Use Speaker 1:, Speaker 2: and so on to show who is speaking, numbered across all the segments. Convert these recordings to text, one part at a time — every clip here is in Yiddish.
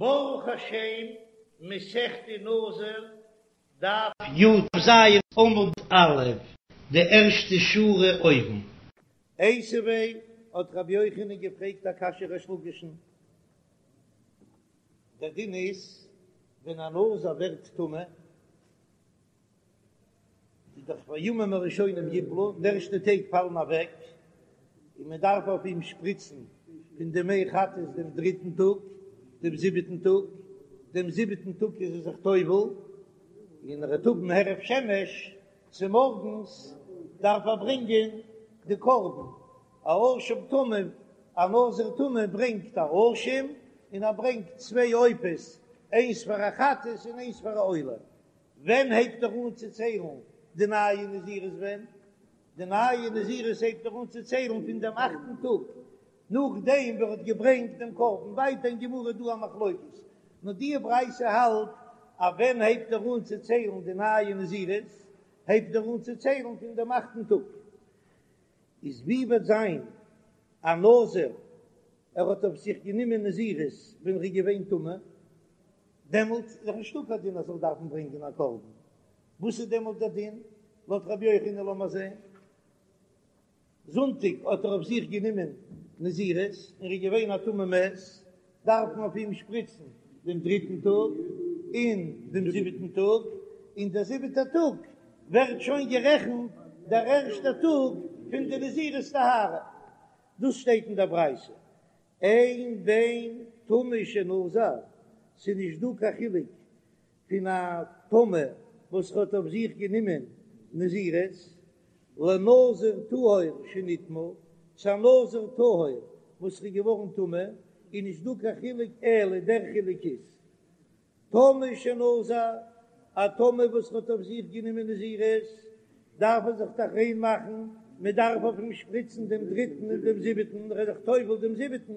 Speaker 1: ברוך השם, מסכת נזיר, דף י"ז עמוד א', די ערשטע שורה אויבן. איתיביה האט רבי יוחנן געפרעגט א קשיא ריש לקיש'ן, דער דין איז ווען א נזיר ווערט טמא, איז דאך והימים הראשונים יפלו, די ערשטע טעג פאלן אוועק, און מען דארף אויף אים שפריצן פון די מי חטאת דעם דריטן טאג, דעם זיבעטן טאג, דעם זיבעטן טאג איז ער זיך טובל, און ער וועט האבן הערב שמש, צומארגנס דארף ער ברענגען די קרבן, א אשם טמא, א נזיר טמא ברענגט א אשם, און ער ברענגט צוויי עופות, איינס פאר א חטאת און איינס פאר א עולה. ווען הייבט ער אן צו ציילן די נייע נזירות ווען? די נייע נזירות הייבט ער אן צו ציילן פון דעם אכטן טאג נאכדעם ווען ער האט געברענגט דעם קרבן, ווייטער אין גמרא איז דא א מחלוקת, נאר די ברייתא האלט אז ווען הייבט ער אן צו ציילן די נייע נזירות, הייבט ער אן צו ציילן פון דעם אכטן טאג. איז ווי וועט זיין א נזיר ער האט אויף זיך גענומען נזירות ווען ער איז געווען טמא, דעמאלט איז דאך נישטא קיין דין אז זאל דארפן ברענגען א קרבן, וואס איז דעמאלט דער דין לויט רבי יוחנן? לאמיר זען, זונטאג האט ער אויף זיך גענומען נזירות און ער איז געווען א טמא מת, דארף מען אויף אים שפריצן דעם דריטן טאג און דעם זיבעטן טאג, און דער זיבעטער טאג ווערט שוין גערעכנט דער ערשטער טאג פון די נזירות טהרה, דאס שטייט אין דער ברייתא, אין בין טמא שנזר, ס'איז נישט דא קיין חילוק פון א טמא וואס האט אויף זיך גענומען נזירות, לנזיר טהור שנטמא, צו א נזיר טהור וואס איז געווארן טמא, איז נישט דא קיין חילוק אלא דער חילוק איז טמא שנזר, א טמא וואס האט אויף זיך גענומען נזירות, דארף ער זיך דאך ריין מאכן, מען דארף אויף אים שפריצן דעם דריטן און דעם זיבעטן, ער איז זיך טובל דעם זיבעטן,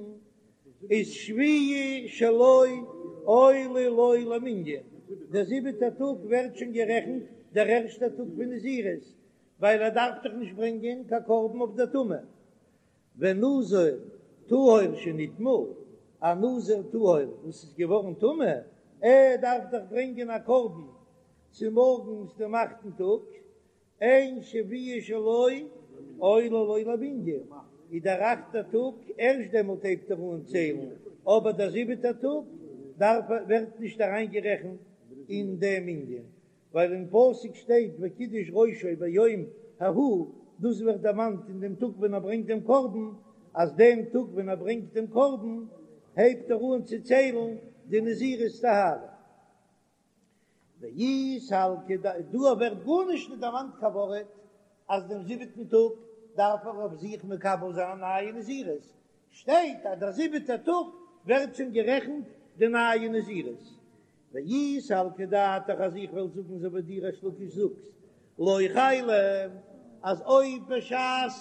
Speaker 1: איז שביעי שלו עולה לו למנין, דער זיבעטער טאג ווערט שוין גערעכנט דער ערשטער טאג פון נזירות, ווייל ער דארף דאך נישט ברענגען קיין קרבן אויף דער טומאה. ונזיר טהור שנטמא, א נזיר טהור וואס איז געווארן טמא, ער דארף דאך ברענגען א קרבן צומארגנס דעם אכטן טאג, אין שביעי שלו עולה לו למנין, איז דער אכטער טאג, ערשט דעמאלט הייבט ער אן ציילן, אבער דער זיבעטער טאג דארף ווערט נישט אריינגערעכנט אין דעם מנין, ווייל אין פסוק שטייט וקידש ראשו ביום ההוא, דאס ווערט דערמאנט אין דעם טאג ווען ער ברענגט דעם קרבן, אז דעם טאג ווען ער ברענגט דעם קרבן הייבט ער אן צו ציילן די נזירות טהרה. ואי סלקא ד, דא ווערט גארנישט נישט דערמאנט קיין ווארט אז דעם זיבעטן טאג דארף ער אויף זיך מקבל זיין א נייע נזירות, שטייט אז דער זיבעטער טאג ווערט שוין גערעכנט די נייע נזירות, ואי סלקא דעתך אז איך וועל זאגן אזוי ווי דו ריש לקיש זאגסט לא חיילא אז אויב בשעת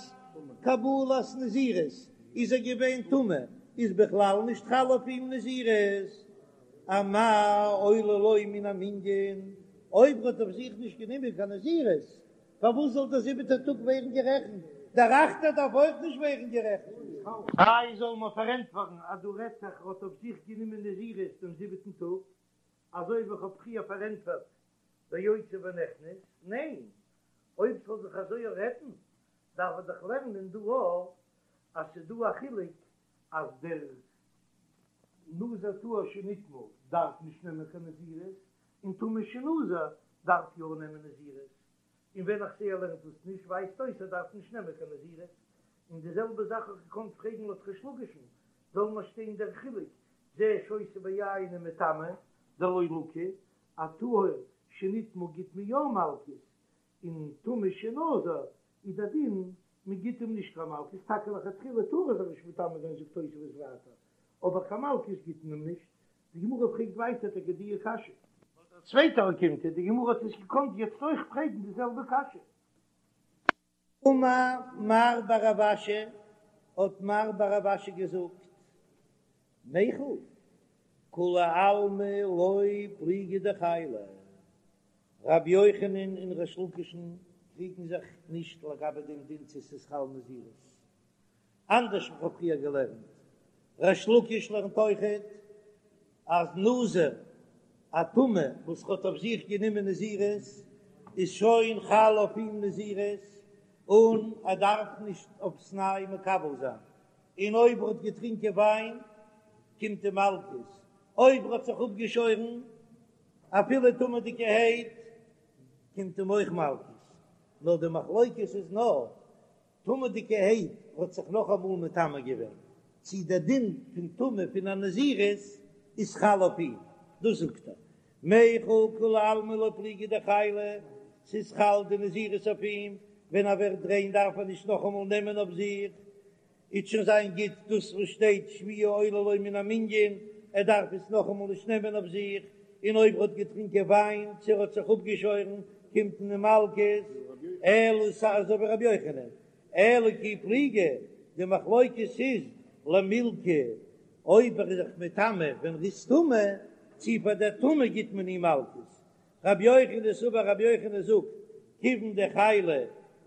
Speaker 1: קבלת נזירות איז ער געווען טמא איז בכלל נישט חל אויף אים נזירות אמאי עולה לו מן המנין אויב ער האט אויף זיך נישט גענומען קיין נזירות פארוואס זאל דער זיבעטער טאג ווערן גערעכנט? דער אכטער דארף אויך נישט ווערן גערעכנט. איי זאל מען פארענטפערן אז דא רעדט זיך ער האט אויף זיך גענומען נזירות דעם זיבעטן טאג, אזוי ווי איך האב פריער פארענטפערט ביוצא ונכנס? ניין, אויב ס'זאל זיך אזוי רעדן דארף ער דאך לערנען דא אויך אז ס'איז דא א חילוק אז דער נזיר טהור שנטמא דארף נישט נעמען קיין נזירות, און טמא שנזר דארף יא נעמען נזירות, און ווען איך זעה ער לערנט דאס נישט ווייזט אויס ער דארף נישט נעמען קיין נזירות, און די זעלבע זאך האב איך געקאנט פרעגן לויט ריש לקיש'ן, זאל נאר שטיין דער חילוק זה שותה ביין ומטמא דלא לקי, א טהור שנטמא גיט מען יא מלקות, און טמא שנזר איז דער דין מען גיט אים נישט קיין מלקות, טאקע לכתחילה טאר ער זיך נישט מטמא זיין זאגט תוספות ווייטער, אבער קיין מלקות גיט מען אים נישט, די גמרא פרעגט ווייטער טאקע די קשיא. לויט דער צווייטער אוקימתא, די גמרא האט עס געקאנט יעצט אויך פרעגן די זעלבע קשיא. אמר מר בר רב אשי, האט מר בר רב אשי געזאגט, מיכל, כולי עלמא לא פליגי דחיילא, רבי יוחנן און ריש לקיש'ן קריגן זיך נישט לגבי דעם דין צו ס'איז חל נזירות, אנדערש ווי כ'האב פריער געלערנט, ריש לקיש לערנט אויכעט. אז נזיר א טמא וואס האט אויף זיך גענומען נזירות איז שוין חל אויף אים נזירות און ער דארף נישט אויפסניי מקבל זיין, און אויב ער האט געטרינקען וויין קומט אים מלקות, אויב ער האט זיך אפגעשוירן אפילו טמא'דיגערהייט קומט אים אויך מלקות, נאר די מחלוקת איז נאר טמא'דיגערהייט האט זיך נאכאמאל מטמא געווען, צי דער דין פון טומאה פון א נזירות איז חל אויף אים, דאס זאגט ער, מיחל כולי עלמא לא פליגי דחיילא, ס'איז חל די נזירות אויף אים, ווען ער ווערט ריין דארף ער נישט נאכאמאל נעמען אויף זיך, איז שוין זיין גוט דאס וואס שטייט שביעי עולה לו מן המנין, ער דארף עס נאכאמאל נישט נעמען אויף זיך, און אויב ער האט געטרינקען וויין צו ער האט זיך אפגעשוירן קומט אים מלקות, אלא אזוי ווי רבי יוחנן, אלא כי פליגי, די מחלוקת איז למילקא, אויב ער איז זיך מטמא ווען ער איז טמא, צו פאר דער טומאה גיט מען אים מלקות, רבי יוחנן סבר רבי יוחנן זאגט כיוון דחיילא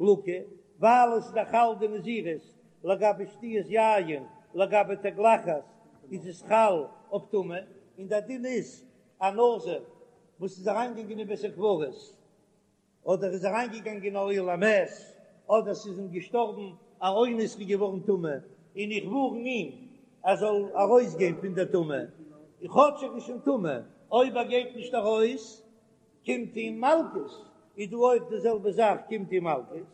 Speaker 1: לקי, ווייל עס איז דאך חל די נזירות לגבי שתיית יין, לגבי תגלחת איז עס חל אויף טומאה, און דער דין איז א נזיר וואס איז אריינגעגאנגען אין בית הקברות אדער איז אריינגעגאנגען אין אוהל המת אדער ס'איז אים געשטארבן א אונס איז געווארן טמא און איך ווארן אים ער זאל ארויסגיין פון דער טומאה, און כאטש ער איז שוין טמא, אויב ער גייט נישט ארויס קומט אים מלקות, איז דא אויך די זעלבע זאך קומט אים מלקות,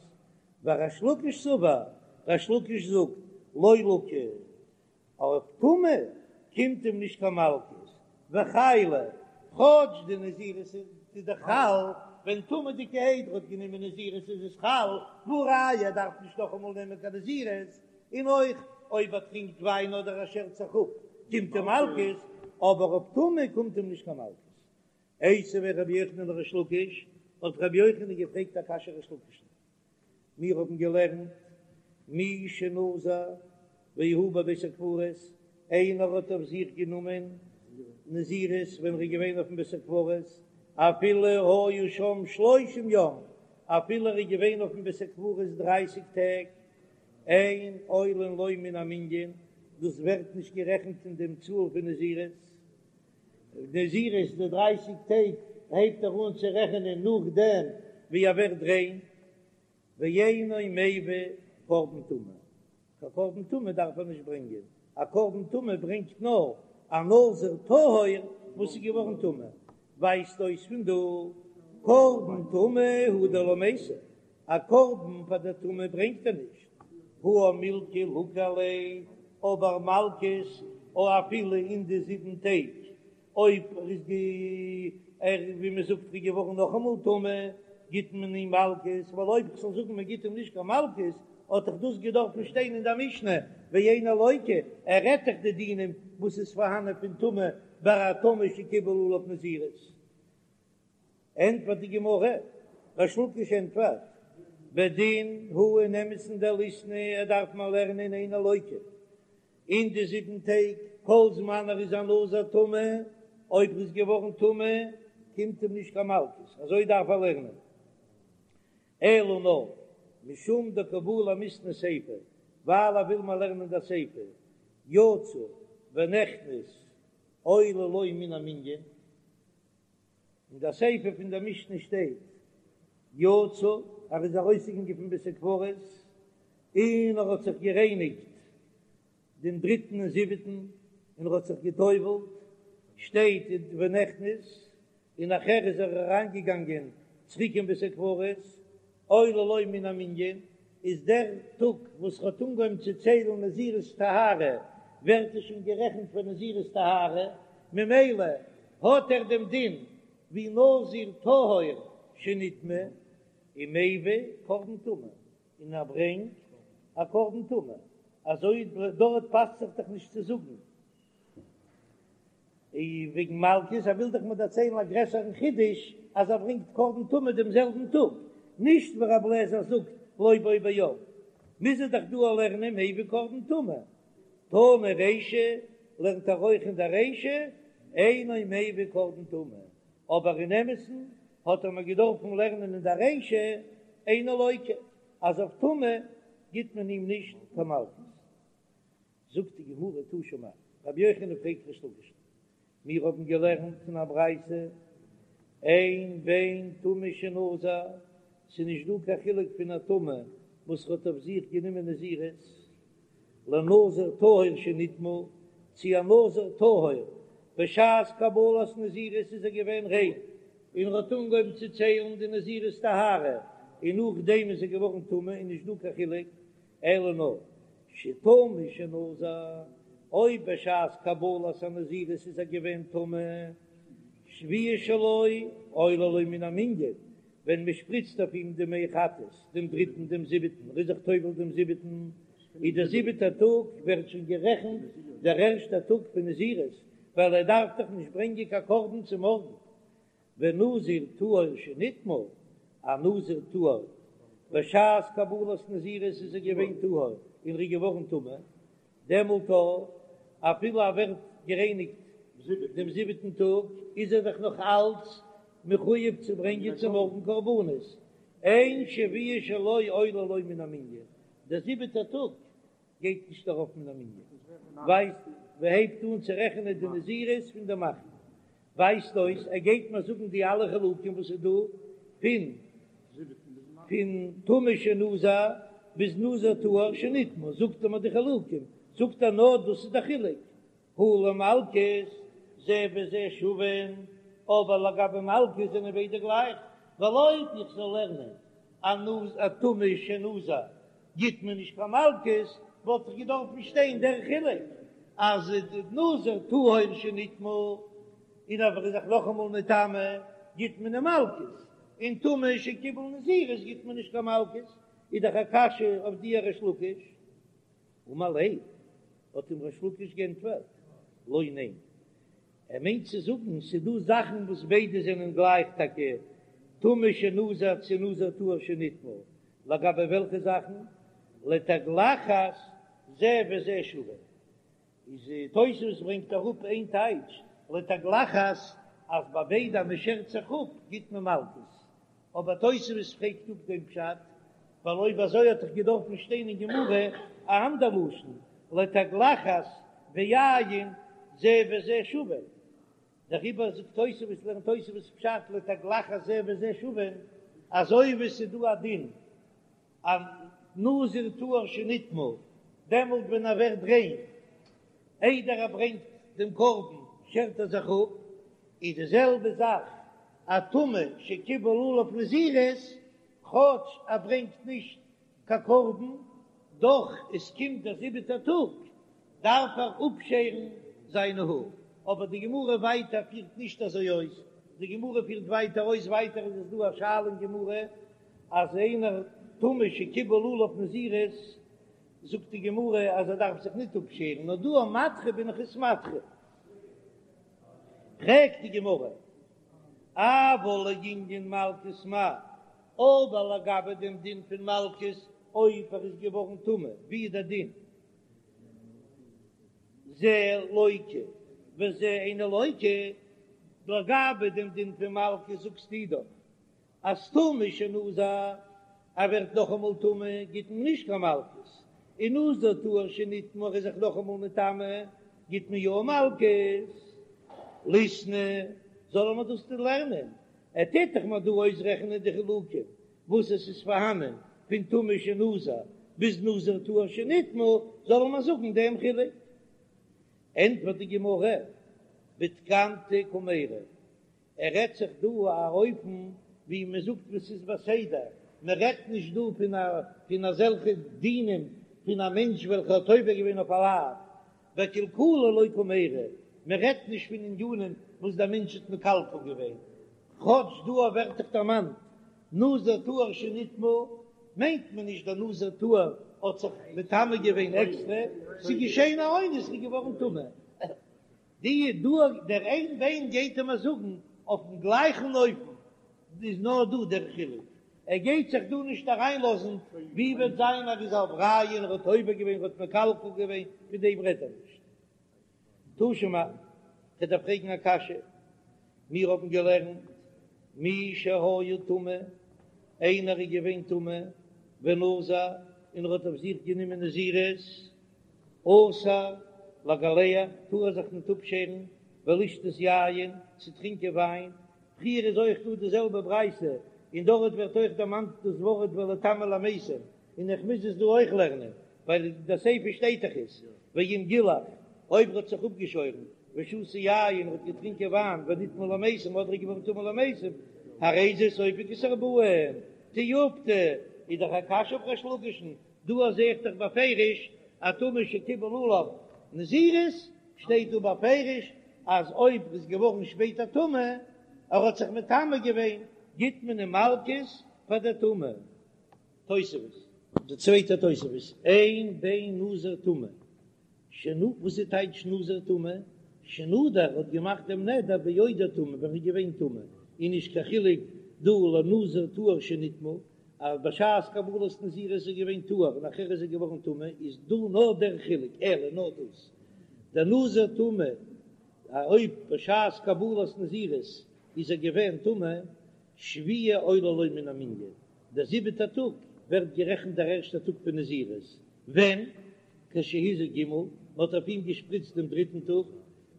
Speaker 1: וריש לקיש סבר, ריש לקיש זאגט, לא לקי, אויף טומאה קומט אים נישט קיין מלקות, וחיילא, כאטש די נזירות איז דאך חל, ווען טמא'דיגערהייט ער האט גענומען נזירות איז עס חל, והא ראיה ער דארף נישט נאכאמאל נעמען קיין נזירות, און אויך אויב ער טרינקט וויין אדער ער שערט זיך אפ קומט אים מלקות, אבער אויף טומאה קומט אים נישט קיין מלקות. איתיביה רבי יוחנן לריש לקיש, האט רבי יוחנן געפרעגט א קשיא ריש לקיש'ן, מיר האבן געלערנט מי שנזר והוא בבית הקברות, איינער האט אויף זיך גענומען נזירות ווען ער איז געווען אויפן בית הקברות, אפילו היה שם שלושים יום, אפילו ער איז געווען אויפן בית הקברות דרייסיג טעג, אין עולין לו מן המנין, דאס ווערט נישט גערעכנט אין דעם צאל פון נזירות, נזירות די דרייסיג טעג הייבט ער אן צו רעכענען נאכדעם ווי ער ווערט ריין, ואינו מביא קרבן טומאה, קיין קרבן טומאה דארף ער נישט ברענגען, א קרבן טומאה ברענגט נאר א נזיר טהור וואס איז געווארן טמא, ווייזט אויס פון דא קרבן טומאה הוא דלא מייתי, א קרבן פאר די טומאה ברענגט ער נישט, הא מילקא לקו עליה, אבער מלקות או אפילו אין די זיבן טעג, אויב ער איז גע ער ווי מען זאגט איז געווארן נאכאמאל טמא, גיט מען אים מלקות, ווייל אויב כ'זאל זאגן מען גיט אים נישט קיין מלקות, האט דאך דאס געדארפן שטיין אין דער משנה, ואינו לוקה, ער רעדט דאך די דינים וואס איז פארהאנען פון טומאה ביי א טמא שקיבל עליו נזירות. ענטפערט די גמרא, ריש לקיש ענטפערט, בדין הוא אין אמת'ן דליתני ער דארף מען לערנען אינו לוקה אין די זיבן טעג כל זמן ער איז א נזיר טמא, אויב ער איז געווארן טמא קומט אים נישט קיין מלקות, אזוי דארף ער לערנען, אלא נאר משום דקא בעי למיתני סיפא, ווייל ער וויל מיר לערנען די סיפא, יצא ונכנס עולה לו מן המנין. אין דער סיפא פון דער משנה שטייט, יצא, ער איז ארויסגעגאנגען פון בית הקברות, און ער האט זיך גערייניגט דעם דריטן און זיבעטן, און ער האט זיך גע'טובל'ט, שטייט ונכנס, און נאכער איז ער אריינגעגאנגען צוריק אין בית הקברות, עולה לו מן המנין, איז דער טאג וואס ער האט אנגעהויבן צו ציילן נזירות טהרה, ווערט עס שוין גערעכנט פאר נזירות טהרה, ממילא האט ער דעם דין ווי נזיר טהור שנטמא, ומביא קרבן טומאה, און ער ברענגט א קרבן טומאה, אזוי דארט פאסט זיך דאך נישט צו זאגן. וועגן מלקות, ער וויל דאך מיר דערציילן א גרעסערן חידוש אז ער ברענגט קרבן טומאה דעם זעלבן טאג, נישט ווי רבי אליעזר זאגט לא בו ביום, מוז ער דאך דא לערנען מביא קרבן טומאה, תנא רישא לערנט ער אויך אין דער רישא אינו מביא קרבן טומאה, אבער אין אמת'ן האט ער מיר געדארפן לערנען אין דער רישא אינו לוקה אז אויף טומאה גיט מען אים נישט קיין מלקות. זאגט די גמרא תא שמע, רבי יוחנן פרעגט ריש לקיש'ן. מיר האבן געלערנט אין א ברייתא, אין בין טמא שנזר, ס'איז נישט דא קיין חילוק פון א טמא וואס האט אויף זיך גענומען נזירות, לנזיר טהור שנטמא, צו א נזיר טהור, בשעת קבלת נזירות איז ער געווען ריין, און ער האט אנגעהויבן צו ציילן די נזירות טהרה, און נאכדעם איז ער געווארן טמא, איז נישט דא קיין חילוק, אלא נאר שטמא שנזר, אויב בשעת קבלת הנזירות איז ער געווען טמא, שביעי שלו עולה לו מן המנין, ווען מען שפריצט אויף אים די מי חטאת דעם דריטן דעם זיבעטן, ער איז זיך טובל דעם זיבעטן, איז דער זיבעטער טאג ווערט שוין גערעכנט דער ערשטער טאג פון נזירות, ווייל ער דארף דאך נישט ברענגען קיין קרבן צו מארגן. ונזיר טהור שנטמא, א נזיר טהור, בשעת קבלת נזירות איז ער געווען טהור און ער איז געווארן טמא, דעמאלט אפילו ער ווערט גערייניגט דעם זיבעטן טאג, איז ער דאך נאך אלץ מחויב צו ברענגען צו מארגן קרבנות, אין שביעי שלו עולה לו מן המנין, דער זיבעטער טאג גייט נישט ארויף מן המנין, ווייזט מ'הייבט אן צו רעכענען די נזירות פון דעם אכטן, ווייזט אויס ער גייט מיר זאגן די אלע חילוקים וואס איז דא פון פון טמא שנזר ביז נזיר טהור שנטמא, זאגט ער מיר די חילוקים, זאגט ער נאר דאס איז די חילוק, הא למלקות זה וזה שווין, אבער לגבי מלקות זענען ביידע גלייך, ווייל אויב איך זאל לערנען א נז א טמא שנזר גיט מען נישט קיין מלקות, וואלט דאך געדארפן שטיין דער חילוק אז נזיר טהור שנטמא און אויב ער איז זיך נאכאמאל מטמא גיט מען אים מלקות, און טמא שקיבל נזירות גיט מען נישט קיין מלקות, איז דאך א קשיא אויף דיר ריש לקיש. אמר ליה, האט אים ריש לקיש גענטפערט, לא ניין, ער מיינט צו זאגן ס'איז דא זאכן וואס ביידע זענען גלייך טאקע טמא שנזר צו נזיר טהור שנטמא, לגבי וועלכע זאכן? לתגלחת זה וזה שווה, איז תוספות ברענגט אראפ איין טייטש לתגלחת אז ביי ביידע אז מ'שערט זיך אפ גיט מען מלקות, אבער תוספות פרעגט אפ דעם פשט, ווייל אויב אזוי האט דאך געדארפן שטיין אין גמרא א אנדער לשון, לתגלחת ויין זה וזה שווה. דעריבער זאגט תוספות, לערנט תוספות פשט לתגלחת זה וזה שווה, אזוי ווי עס איז דא א דין א נזיר טהור שנטמא, דעמאלט ווען ער ווערט ריין איידער ער ברענגט דעם קרבן שערט ער זיך אפ, איז די זעלבע זאך א טמא שקיבל עליו נזירות, כאטש ער ברענגט נישט קיין קרבן, דאך עס קומט דער זיבעטער טאג דארף ער אפשערן זיינע האר, אבער די גמרא ווייטער פירט נישט אזוי אויס, די גמרא פירט ווייטער אויס, ווייטער איז עס דא א שאלה אין גמרא אז איינער טמא שקיבל עליו נזירות, זאגט די גמרא אז ער דארף זיך ניט אפשערן, נאר דא א מדחה בין איך עס מדחה. פרעגט די גמרא, אבל לענין מלקות מאי, אבער לגבי דעם דין פון מלקות אויב ער איז געווארן טמא, ווי איז דער דין? זה לוקה וזה אינו לוקה, לגבי דעם דין פון מלקות זאגסטו דאך אז טמא שנזר, ער ווערט נאכאמאל טמא גיט מען נישט קיין מלקות, און נזיר טהור שנטמא ער איז זיך נאכאמאל מטמא גיט מען יא מלקות. ליתני, זאל מען דאס לערנען, ער טוט דאך מיר דא אויסרעכענען די חילוקים וואס עס איז פארהאנען פון טמא שנזר ביז נזיר טהור שנטמא, זאל מען זאגן דעם חילוק. ענטפערט די גמרא, בתקנתא קמיירי, ער רעדט זיך דא א אופן ווי מען זאגט וואס איז בסדר, מען רעדט נישט דא פון א פון אזעלכע דינים פון א מענטש וועלכע האט עובר געווען אויף א לאו, בקלקולא לא קמיירי, מען רעדט נישט פון ענינים וואס דער מענטש האט מקלקל געווען, כאטש דא ווערט דאך דערמאנט נזיר טהור שנטמא, מיינט מען נישט דער נזיר טהור האט זיך מטמא געווען עקסטרע, ס'איז געשען א אונס איז געווארן טמא. די דא דער אין בין גייט ער מיר זאגן אויפן גלייכן אופן איז נאר דא דער חילוק, ער גייט זיך דא נישט אריינלאזן ווי וועט זיין ער איז עבריין ער האט עובר געווען ער האט מקלקל געווען פון דעם רעדט ער נישט. תא שמע, כ'וועל דיר פרעגן א קשיא, מיר האבן געלערנט מי שהיה טמא, איינער איז געווען טמא ונזר און ער האט אויף זיך גענומען נזירות, אסור לגלח, טאר ער זיך ניט אפשערן. ולשתות יין, צו טרינקען וויין, פריער איז אויך דא די זעלבע ברייתא, און דארט ווערט אויך דערמאנט דאס ווארט וליטמא למתים, און איך מוז עס דא אויך לערנען, ווייל אין די סיפא שטייט דאך עס, ואם גילח, אויב ער האט זיך אפגעשוירן, ושתה יין, האט געטרינקען וויין, ונטמא למתים, אדער איז געווארן טמא למתים, הרי זה סופג את הארבעים, תיובתא, איז דאך א קשיא אויף ריש לקיש'ן, דא זעה איך דאך בפירוש א טמא שקיבל עליו נזירות, שטייט דא בפירוש אז אויב איז געווארן שפעטער טמא, ער האט זיך מטמא געווען, גיט מען אים מלקות פאר די טומאה. תוספות. די צווייטע תוספות, אין בין נזיר טמא שנ וואס איז טייטש נזיר טמא? שנדר האט געמאכט דעם נדר בעודו טמא ווען ער איז געווען טמא, און נישט קיין חילוק דא לנזיר טהור שנטמא, אז בשעת קבלת נזירות איז ער געווען טהור און נאכער איז ער געווארן טמא, איז דא נאר דער חילוק, אלא נאר דאס, דער נזיר טמא אויב בשעת קבלת נזירות איז ער געווען טמא, שביעי עולה לו מן המנין, דער זיבעטער טאג ווערט גערעכנט דער ערשטער טאג פון נזירות, ווען? כשהזה ג', מען האט אויף אים געשפריצט דעם דריטן טאג,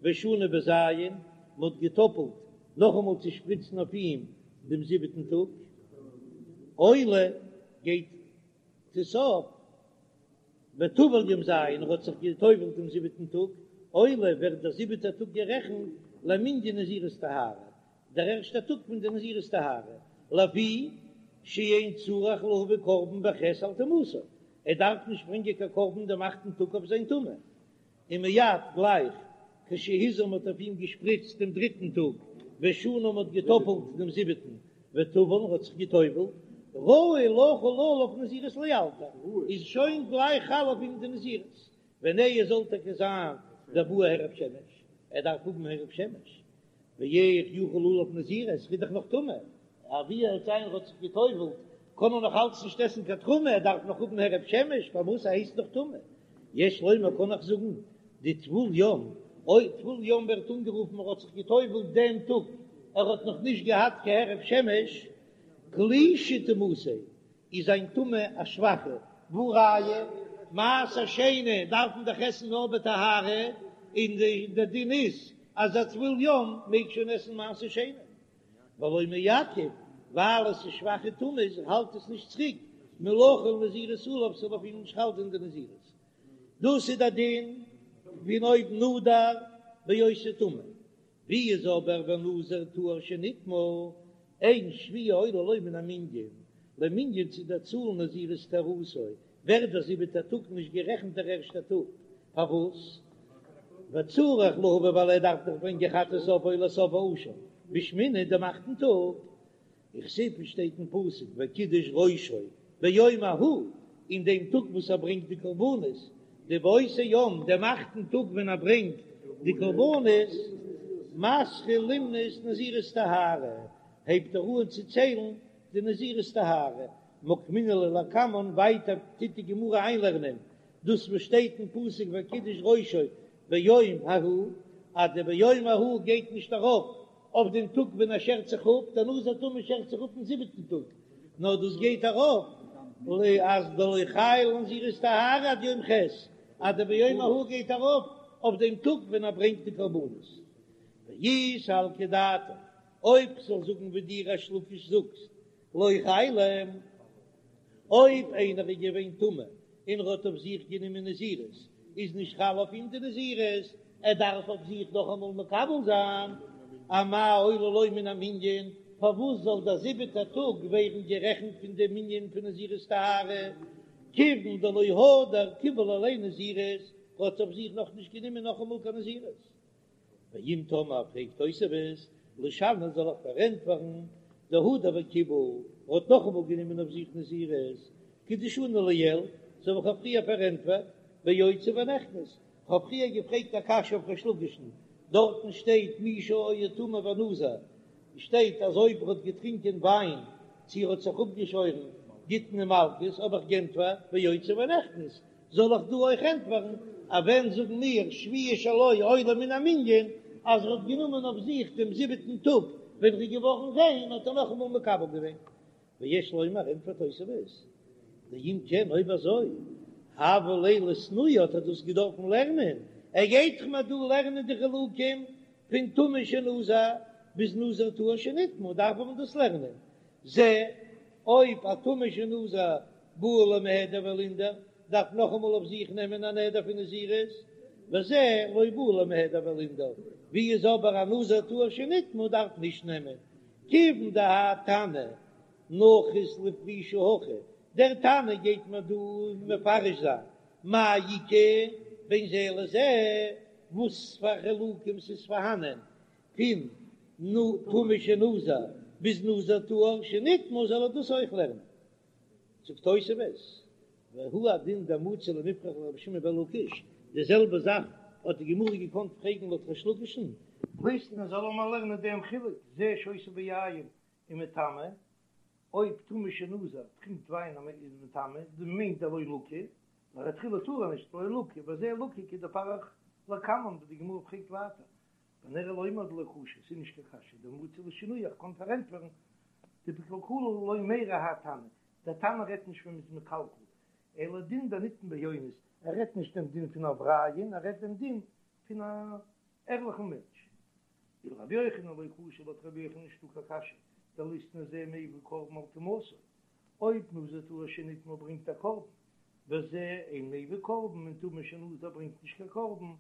Speaker 1: ושנה בז', מען האט געטאפלט נאכאמאל צו שפריצן אויף אים דעם זיבעטן טאג, עולה גייט עס אויף, וטבל יום ז', ער האט זיך געטובלט דעם זיבעטן טאג, עולה ווערט דער זיבעטער טאג גערעכנט למנין נזירות טהרה, דער ערשטער טאג פון די נזירות טהרה, לפי שאין צריך להביא קרבן בח' על טומאתו, ער דארף נישט ברענגען קיין קרבן דעם אכטן טאג אויף זיין טומאה, און מיד גלייך כשהזה מ'האט אויף אים געשפריצט דעם דריטן טאג, ושנה מ'האט געטאפלט דעם זיבעטן, וטבל ער האט זיך געטובלט, ראוי לחול עליו נזירות לאלתר, איז שוין גלייך חל אויף אים די נזירות, ונהי זאל טאקע זיין דבעי הערב שמש, ער דארף האבן הערב שמש, ואיך יחול עליו נזירות, ער איז דאך נאך טמא, אבי ער האט זיין האט זיך געטובלט, קען ער נאך אלץ נישט עסן קיין תרומה, ער דארף נאך האבן הערב שמש, פארוואס ער הייסט נאך טמא? יש לומר קען איך זאגן, דטבול יום, אויב טבול יום ווערט אנגערופן ער האט זיך געטובלט דעם טאג, ער האט נאך נישט געהאט קיין הערב שמש, קלישא טומאתיה, איז זיין טומאה א שוואכע, והא ראיה, מעשר שני דארף מען דאך עסן נאר בטהרה, און די דין איז אז א טבול יום מעג שוין עסן מעשר שני, ולא מעכב, ווייל עס איז שוואכע טומאה איז האלט עס נישט צוריק מלחול נזירות עליו ס'זאל אויף אים נישט חל זיין די נזירות, דאס איז די דין פון אויב נדר בהיותו טמא, ווי איז אבער ונזיר טהור שנטמא, אין שביעי עולה לו מן המנין, למנין צו דער צאל נזירות טהרתו, ווערט דער זיבעטער טאג נישט גערעכנט דער ערשטער טאג, פארוואס? וצריך להביא ווייל ער דארף דאך ברענגען חטאת העוף ועולת העוף והאשם בשמיני דעם אכטן טאג, וכתיב שטייט אין פסוק וקידש ראשו ביום ההוא, אין דעם טאג וואס ער ברענגט די קרבנות, דבאותו יום, דעם אכטן טאג ווען ער ברענגט די קרבנות, מתחיל למנות נזירות טהרה, הייבט ער אן צו ציילן די נזירות טהרה, מוקמינן לה לקמן, ווייטער טוט די גמרא איינלערנען דאס וואס שטייט אין פסוק וקידש ראשו ביום ההוא, אז די ביום ההוא גייט נישט ארויף אויף דעם טאג ווען ער שערט זיך אפ, דער נזיר טמא שערט זיך אפ אין זיבעטן טאג, נאר דאס גייט ארויף אז דלא חיילא לנזירות טהרה עד יום ח', אז די ביום ההוא גייט ארויף אויף דעם טאג ווען ער ברענגט די קרבנות. ואי סלקא דעתך, אויב כ'זאל זאגן ווי דו ריש לקיש זאגסט, לא חיילא, אויב איינער איז געווען טמא און ער האט אויף זיך גענומען נזירות, איז נישט חל אויף אים די נזירות, ער דארף אויף זיך נאכאמאל מקבל זיין, אמאי עולה לו מן המנין, פארוואס זאל דער זיבעטער טאג ווערן גערעכנט פון דעם מנין פון נזירות טהרה, כיוון דלא הדר קיבל עליה נזירות, ער האט אויף זיך נאכנישט גענומען נאכאמאל קיין נזירות. ואם תאמר פרעגט תוספות, לשני זאל איך פארענטפערן, דהדר וקיבל, ער האט נאכאמאל גענומען אויף זיך נזירות, כדשני לעיל, אזוי ווי כ'האב פריער פארענטפערט, ביוצא ונכנס, כ'האב פריער געפרעגט א קשיא אויף ריש לקיש'ן, דארטן שטייט מי שהיה טמא ונזר, שטייט אז אויב ער האט געטרינקען וויין צו ער האט זיך אפגעשוירן גיט מען מלקות, האב איך גענטפערט ביוצא ונכנס, זאל איך דא אויך ענטפערן אז ווען זאגן מיר שביעי שלו עולה מן המנין אז ער האט גענומען אויף זיך דעם זיבעטן טאג ווען ער איז געווארן ריין האט ער נאכאמאל מקבל געווען? ויש לומר ענטפערט תוספות דאם כן אויב אזוי הוה ליה לאתנויי האט ער דאס געדארפן לערנען, ער גייט דאך מיר דא לערנען די חילוקים פון. פון טמא שנזר ביז נזיר טהור שנטמא דארף מען דאס לערנען. זה, אויב א טמא שנזר בעי למיהדר ולינדר דארף נאכאמאל אויף זיך נעמען א נדר פון נזירות, וזה לא בעי למיהדר ולינדר, ווי איז אבער א נזיר טהור שנטמא דארף נישט נעמען, כיוון דהאי תנא נחית לפרושי הכא, דער תנא גייט מיר דא מפרש זיין מאי איכא בין זה לזה, וואס פאר חילוקים ס'איז פארהאנען פון טמא שנזר ביז נזיר טהור שנטמא זאל ער דאס אויך לערנען. זאגט תוספות, והוא הדין דמצי למיפרך לרבי שמעון בן לקיש, די זעלבע זאך האט די גמרא געקאנט פרעגן לויט ריש לקיש'ן, ליתני זאל ער מיר לערנען דעם חילוק, זה שותה ביין ומטמא, אויב טמא שנזר טרינקט וויין און איז מטמא, דאס מיינט דלא לקי, לכתחילה טאר ער נישט, לא לקי, וזה לקי כדפריך לקמן, ווי די גמרא פרעגט ווייטער, ונראה לומר דלא קשיא, ס'איז נישט קיין קשיא, דמצי לשנויי, איך קען פארענטפערן, דבקלקולא לא מיירי האי תנא, דער תנא רעדט נישט ווען מ'איז מקלקל, אלא דין דנטמא באונס, ער רעדט נישט דעם דין פון א עבריין, ער רעדט דעם דין פון א ערליכן מענטש. ולרבי יוחנן לא קשיא לויט רבי יוחנן נישטא קיין קשיא, דליתני זה מביא קרבן על טומאתו, אויב נזיר טהור שנטמא ברענגט א קרבן, וזה אין מביא קרבן און טמא שנזר ברענגט נישט קיין קרבן,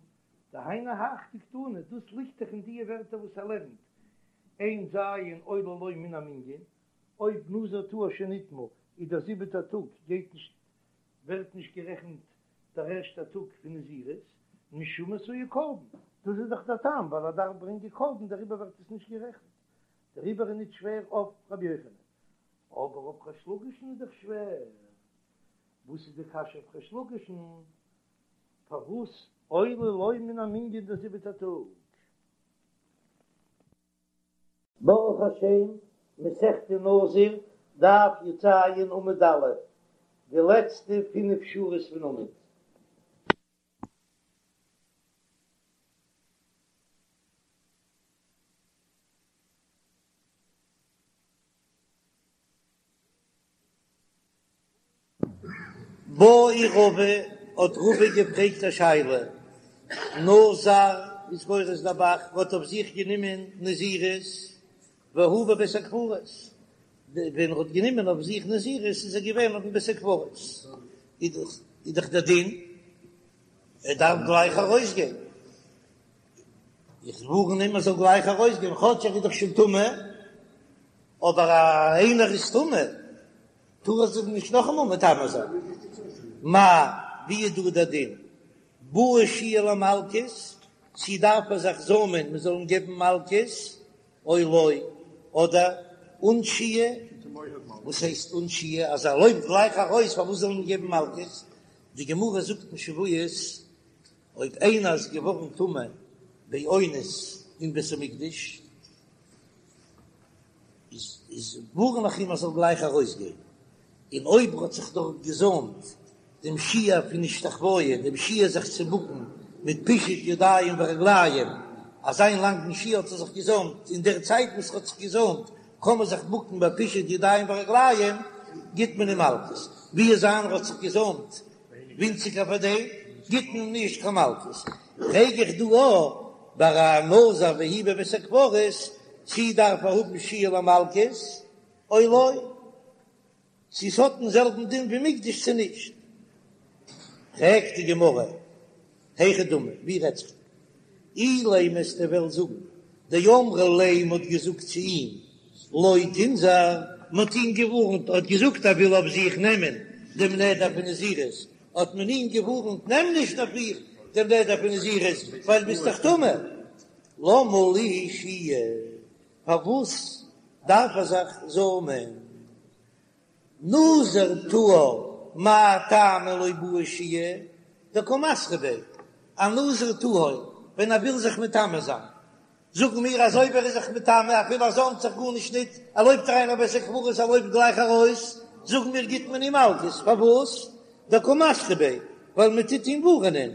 Speaker 1: דהיינו הך דקתני, דאס ליגט דאך אין די ווערטער וואס ער לערנט, אין ז' עולה לו מן המנין, אויב נזיר טהור שנטמא איז דער זיבעטער טאג גייט נישט ווערט נישט גערעכנט דער ערשטער טאג פון נזירות, משום עשויי קרבן, דאס איז דאך דער טעם ווייל ער דארף ברענגען קרבן דעריבער ווערט עס נישט גערעכנט, דעריבער איז נישט שווער אויף רבי יוחנן, אבער אויף ריש לקיש'ן איז דאך שווער, וואס איז די קשיא אויף ריש לקיש'ן? פארוואס עולה לו מן המנין דער זיבעטער טאג? ברוך השם, מסכת נזיר, דף י"ז עמוד א', די לעצטע פינף שורות פון עמוד. בעי רבא, האט רבא געפרעגט א שאלה, נזר איז גורס דער ב"ח האט אויף זיך גענומען נזירות והוא בבית הקברות, ווען ער האט גענומען אויף זיך נזירות איז ער געווען אויפן בית הקברות, איז דאך דער דין ער דארף גלייך ארויסגיין, איך ווארן אים ער זאל גלייך ארויסגיין כאטש ער איז דאך שוין טמא, אבער איינער איז טמא טאר ער זיך נישט נאכאמאל מטמא זיין. מהו, ווי איז דא דער דין? בעי שהייה למלקות, צי דארף ער זיך זאמען מען זאל אים געבן מלקות, או לא, אדער אן שהייה, וואס הייסט אן שהייה? אז ער לויפט גלייך ארויס פארוואס זאל מען אים געבן מלקות? די גמרא זאגט אין שבועות, אויב איינער איז געווארן טמא באונס אין בית המקדש, איז איז ווארן איך אים ער זאל גלייך ארויסגיין, און אויב ער האט זיך דארט געזאמט דעם שיעור פון השתחוויה, דעם שיעור זיך צו בוקן מיט פישוט ידיים ורגליים, אזא לאנגן שיעור האט ער זיך געזאמט, אין דער צייט וואס ער האט זיך געזאמט קען מען זיך בוקן ביי פישוט ידיים ורגליים, גיט מען אים מלקות, ווי איז איינער האט זיך געזאמט ווינציגער פאר דעם, גיט מען אים נישט קיין מלקות. פרעג איך דא אויך ביי א נזיר והוא בבית הקברות, צי דארף ער האבן שהייה למלקות או לא, צי ס'האט דעם זעלבן דין ווי מוקדש צו נישט. פרעגט די גמרא, היכי דמי, ווי רעדט זיך דא? אילימא וועסטו וועלן זאגן, דאמרו ליה מ'האט געזאגט צו אים לא תינזור, מ'האט אים געווארנט, ער האט געזאגט ער וויל אויף זיך נעמען דעם נדר פון נזירות, האט מען אים געווארנט נעם נישט אויף דיך דעם נדר פון נזירות ווייל ביסט דאך טמא, למה לי שהייה, פארוואס דארף ער זיך זאמען? נזיר טהור מאי טעמא לא בעי שהייה דקא מתרי ביה, א נזיר טהור ווען ער וויל זיך מטמא זיין, זאגן מיר אז אויב ער איז זיך מטמא אפילו ער זאמט זיך גארנישט ניט, ער לויפט אריין אין בית הקברות ער לויפט גלייך ארויס, זאגן מיר גיט מען אים מלקות, פארוואס? דקא מתרי ביה, ווייל מען טוט אים ווארענען,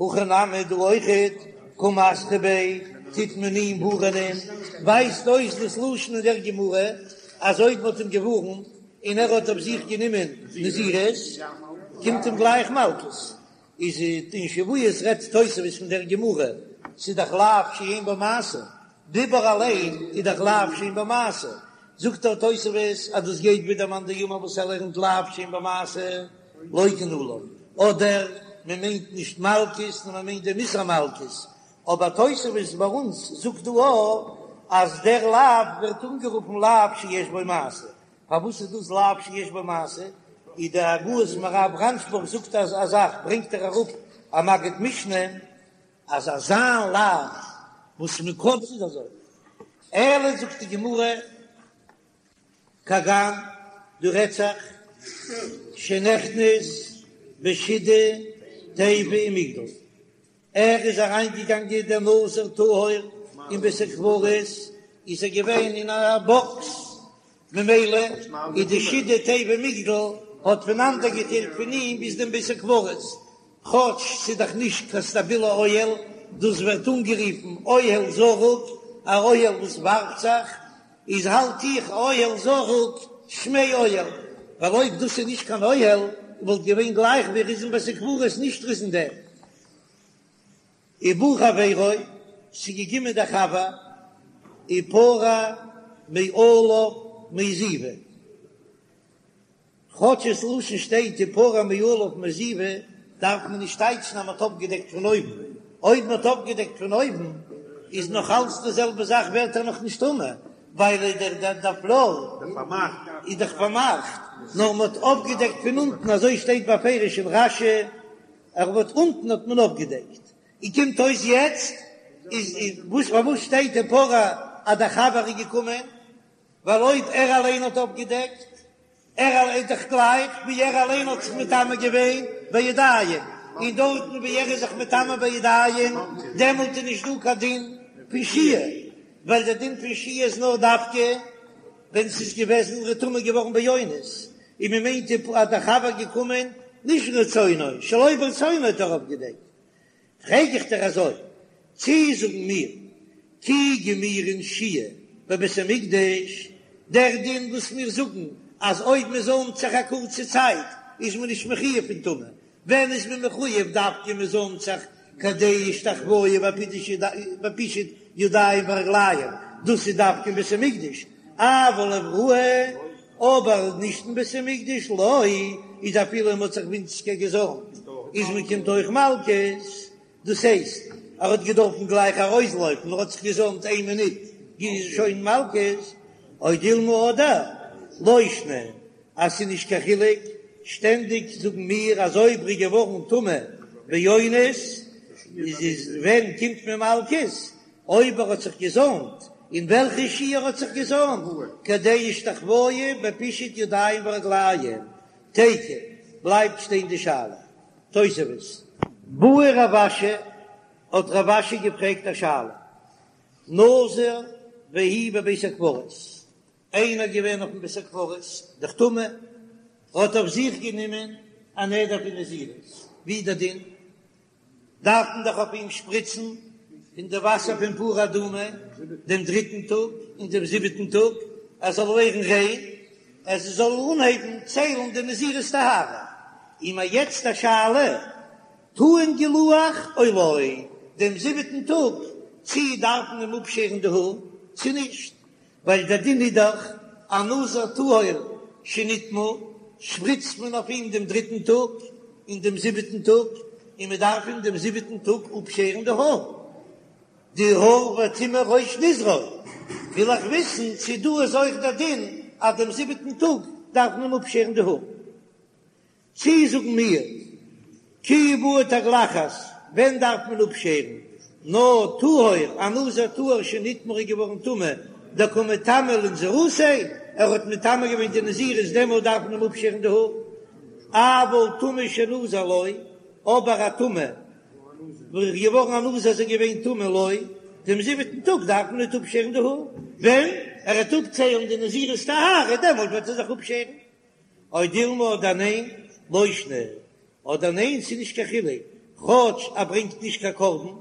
Speaker 1: הכא נמי דא אויכעט קא מתרי ביה טוט מען אים ווארענען, ווייזט אויס דאס לשון אין דער גמרא אז אויב מען האט אים געווארנט און ער האט אויף זיך גענומען נזירות קומט אים גלייך מלקות, איז אין שבועות רעדט תוספות פון דער גמרא. ס'איז דאך לאו שאין בו מעשה, דיבור אליין איז דאך לאו שאין בו מעשה, זאגט דער תוספות אז דאס גייט ווי דער מאן דאמר וואס ער לערנט לאו שאין בו מעשה לוקין עליו, אדער מען מיינט נישט מלקות נאר מען מיינט דעם איסור מלקות, אבער תוספות ביי אונז זאגט דא אויך אז דער לאו ווערט אנגערופן לאו שיש בו מעשה, פארוואס איז דאס לאו שיש בו מעשה? איז די הגהות מהר"א רנשבורג זאגט אז א זאך ברענגט ער אראפ א מגיד משנה אז אזא לאו וואס מען קען ס'איז אזוי אלא זאגט די גמרא כגון דא רעדט זיך שנכנס בשידה תיבה ומגדל ער איז אריינגעגאנגען דער נזיר טהור אין בית הקברות, איז ער געווען אין א באקס, ממילא איז די שידה תיבה ומגדל האט פונאנדערגעטיילט פון אים ביז דעם בית הקברות, כאטש ס'איז דאך נישט קיין סטאבילע אוהל, דאס ווערט אנגערופן אוהל זרוק, א אוהל וואס ווארפט זיך, איז האלט איך אוהל זרוק שמיה אוהל, ווייל אויב דאס איז נישט קיין אוהל וואלט געווען גלייך ווי ער איז אין בית הקברות נישט ער איז אין דעם. ובא חברו, ס'איז געקומען דער חבר, ופרע מעליו מעזיבה. כאטש עס לשון שטייט ופרע מעליו מעזיבה, דארף מען נישט טייטשן אז מ'האט אפגעדעקט פון אויבן, אויב מ'האט אפגעדעקט פון אויבן איז נאך אלץ די זעלבע זאך ווערט ער נאך נישט טמא, ווייל דער דער פלאר איז דאך פארמאכט, נאר מ'האט אפגעדעקט פון אונטן, אזוי שטייט בפירוש אין רש"י, ער האט אונטן האט מען אפגעדעקט, און קומט אויס יעצט איז וואס פארוואס שטייט ופרע אז דער חבר איז געקומען? ווייל אויב ער אליין האט אפגעדעקט, ער אליין איז דאך גלייך ווי ער אליין האט זיך מטמא געווען בידיים, און דארטן ווי ער איז זיך מטמא בידיים, דעמאלט איז נישט דא קיין דין פון שהייה, ווייל דער דין פון שהייה איז נאר דווקא ווען ס'איז געוועזן ער איז טמא געווארן באונס, און מען מיינט אז דער חבר געקומען נישט רצונו, שלא ברצונו האט ער אפגעדעקט. פרעג איך דיר אזוי, צי זאגן מיר כי גמירין שהייה בבית המקדש, דער דין וואס מיר זאגן אז אויב מען זוימט זיך א קורצע צייט איז מען נישט מחויב פון טומאה, ווען איז מען מחויב דווקא מען זוימט זיך כדי השתחוואה בפישוט ידיים ורגליים, דאס איז דווקא אין בית המקדש, אבל אבראי, אבער נישט אין בית המקדש לא, איז אפילו מען האט זיך ווינציגער געזוימט איז מען קומט אויך מלקות, דאס הייסט ער האט געדארפן גלייך ארויסלויפן ער האט זיך געזוימט איין מינוט איז שוין מלקות, או דילמא אדער לא שנא אז ס'איז נישט קיין חילוק, שטענדיג זאגן מיר אז אויב ר'איז געווארן טמא באונס איז איז ווען קומט מען מלקות אויב ער האט זיך געזוימט, אין וועלכע שיעור ער האט זיך געזוימט, כדי השתחוואה בפישוט ידיים ורגליים, תיקו, בלייבט שטיין די שאלה. תוספות. בעי רב אשי, האט רב אשי געפרעגט א שאלה, נזיר והוא בבית הקברות, איינער געווען אויפן בית הקברות, דאך טמא, האט אויף זיך גענומען א נדר פון נזירות, ווי איז דער דין? דארף מען דאך אויף אים שפריצן פון די וואסער פון פרה אדומה דעם דריטן טאג און דעם זיבעטן טאג, ער זאל ווערן ריין, ער זאל אנהייבן ציילן די נזירות טהרה. און מיר יעצט א שאלה, טעון גילוח או לא, דעם זיבעטן טאג, צי דארף מען אים אפשערן די האר צי נישט? ווייל דער דין איז דאך א נזיר טהור שנטמא, שפריצט מען אויף אים דעם דריטן טאג און דעם זיבעטן טאג, און מען דארף אים דעם זיבעטן טאג אפשערן די האר, די האר וטמא ראש נזרו, וויל איך וויסן צו דא איז אויך דער דין אז דעם זיבעטן טאג דארף מען אים אפשערן די האר. צי זאגן מיר, כי בעי תגלחת, ווען דארף מען אפשערן? נאר טהור, א נזיר טהור שנטמא איז געווארן טמא, דקא מטמא לנזירותיה, ער האט מטמא געווען די נזירות דעמאלט דארף מען אים אפשערן די האר, אבל טמא שנזר לא, אבער א טמא וואס איז געווארן א נזיר איז ער געווען טמא לא, דעם זיבעטן טאג דארף מען ניט אפשערן די האר, ווען ער וועט אפציילן די נזירות טהרה דעמאלט וועט ער זיך אפשערן. או דילמא אדער ניין, לא שנא, אדער ניין ס'איז נישט קיין חילוק, כאטש ער ברענגט נישט קיין קרבן,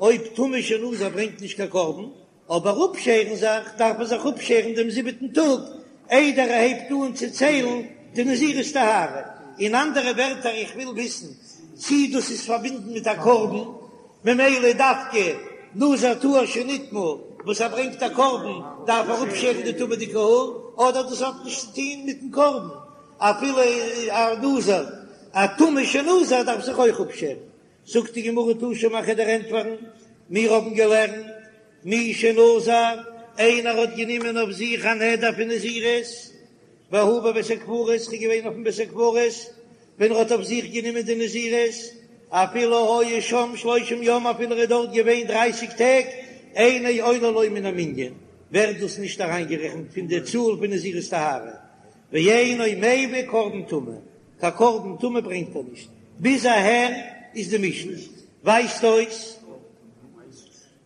Speaker 1: אויב טמא שנזר ברענגט נישט קיין קרבן, אבער אפשערן זיך דארף ער זיך אפשערן דעם זיבעטן טאג איידער ער הייבט אן צו ציילן די נזירות טהרה. אין אנדערע ווערטער איך וויל וויסן צי דאס איז פארבינדן מיט א קרבן. ממילא דווקא נזיר טהור שנטמא וואס ער ברענגט א קרבן דארף ער אפשערן די טומא'דיגע האר, אדער דאס האט נישט צו טון מיטן קרבן, אפילו א נזיר א טמא שנזר דארף זיך אויך אפשערן. זאגט די גמרא תא שמע כ'וועל דיר ענטפערן, מיר האבן געלערנט מי שנזר, איינער האט גענומען אויף זיך א נדר פון נזירות, והוא בבית הקברות, איז געווען אויפן בית הקברות ווען ער האט אויף זיך גענומען די נזירות, אפילו היה שם שלושים יום אפילו ער איז דארט געווען דרייסיג טעג, אינו עולה לו מן המנין, ווערט דאס נישט אריינגערעכנט פון די צאל פון נזירות טהרה, ואינו מביא קרבן טומאה, קיין קרבן טומאה ברענגט ער נישט, ביז אהער איז די משנה, ווייזט אויס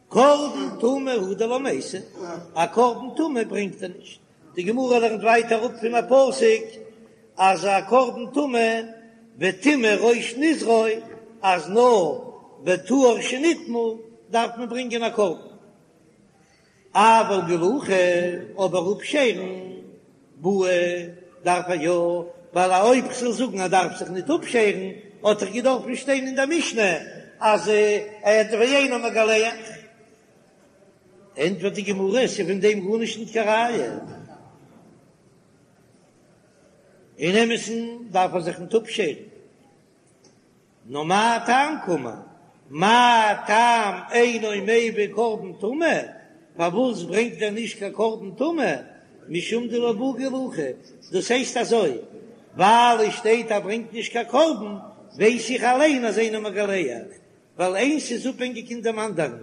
Speaker 1: קרבן טומאה הוא דלא מייתי, א קרבן טומאה ברענגט ער נישט, די גמרא לערנט ווייטער אראפ פון א פסוק אז א קרבן טומאה וטמא ראש נזרו אז נאר בטהור שנטמא דארף מען ברענגען א קרבן. אבל גילוחא, אבער אפשערן בעי דארף ער יא, ווייל אויב כ'זאל זאגן ער דארף זיך ניט אפשערן, האט דאך געדארפן שטיין אין דער משנה אז ער ואינו מגלח. ענטפערט די גמרא, ס'איז פון דעם גארנישט ניט קיין ראיה. אין אמת'ן דארף ער זיך ניט אפשערן. נאר מה טעם קאמר? מה טעם אינו מביא קרבן טומאה? פארוואס ברענגט ער נישט קיין קרבן טומאה? משום דלא בעי גילוחא, דאס הייסט אזוי, ווייל עס שטייט ער ברענגט נישט קיין קרבן, ווייס איך אליין אז אינו מגלח, ווייל איינס איז אפהענגיק אין דעם אנדערן.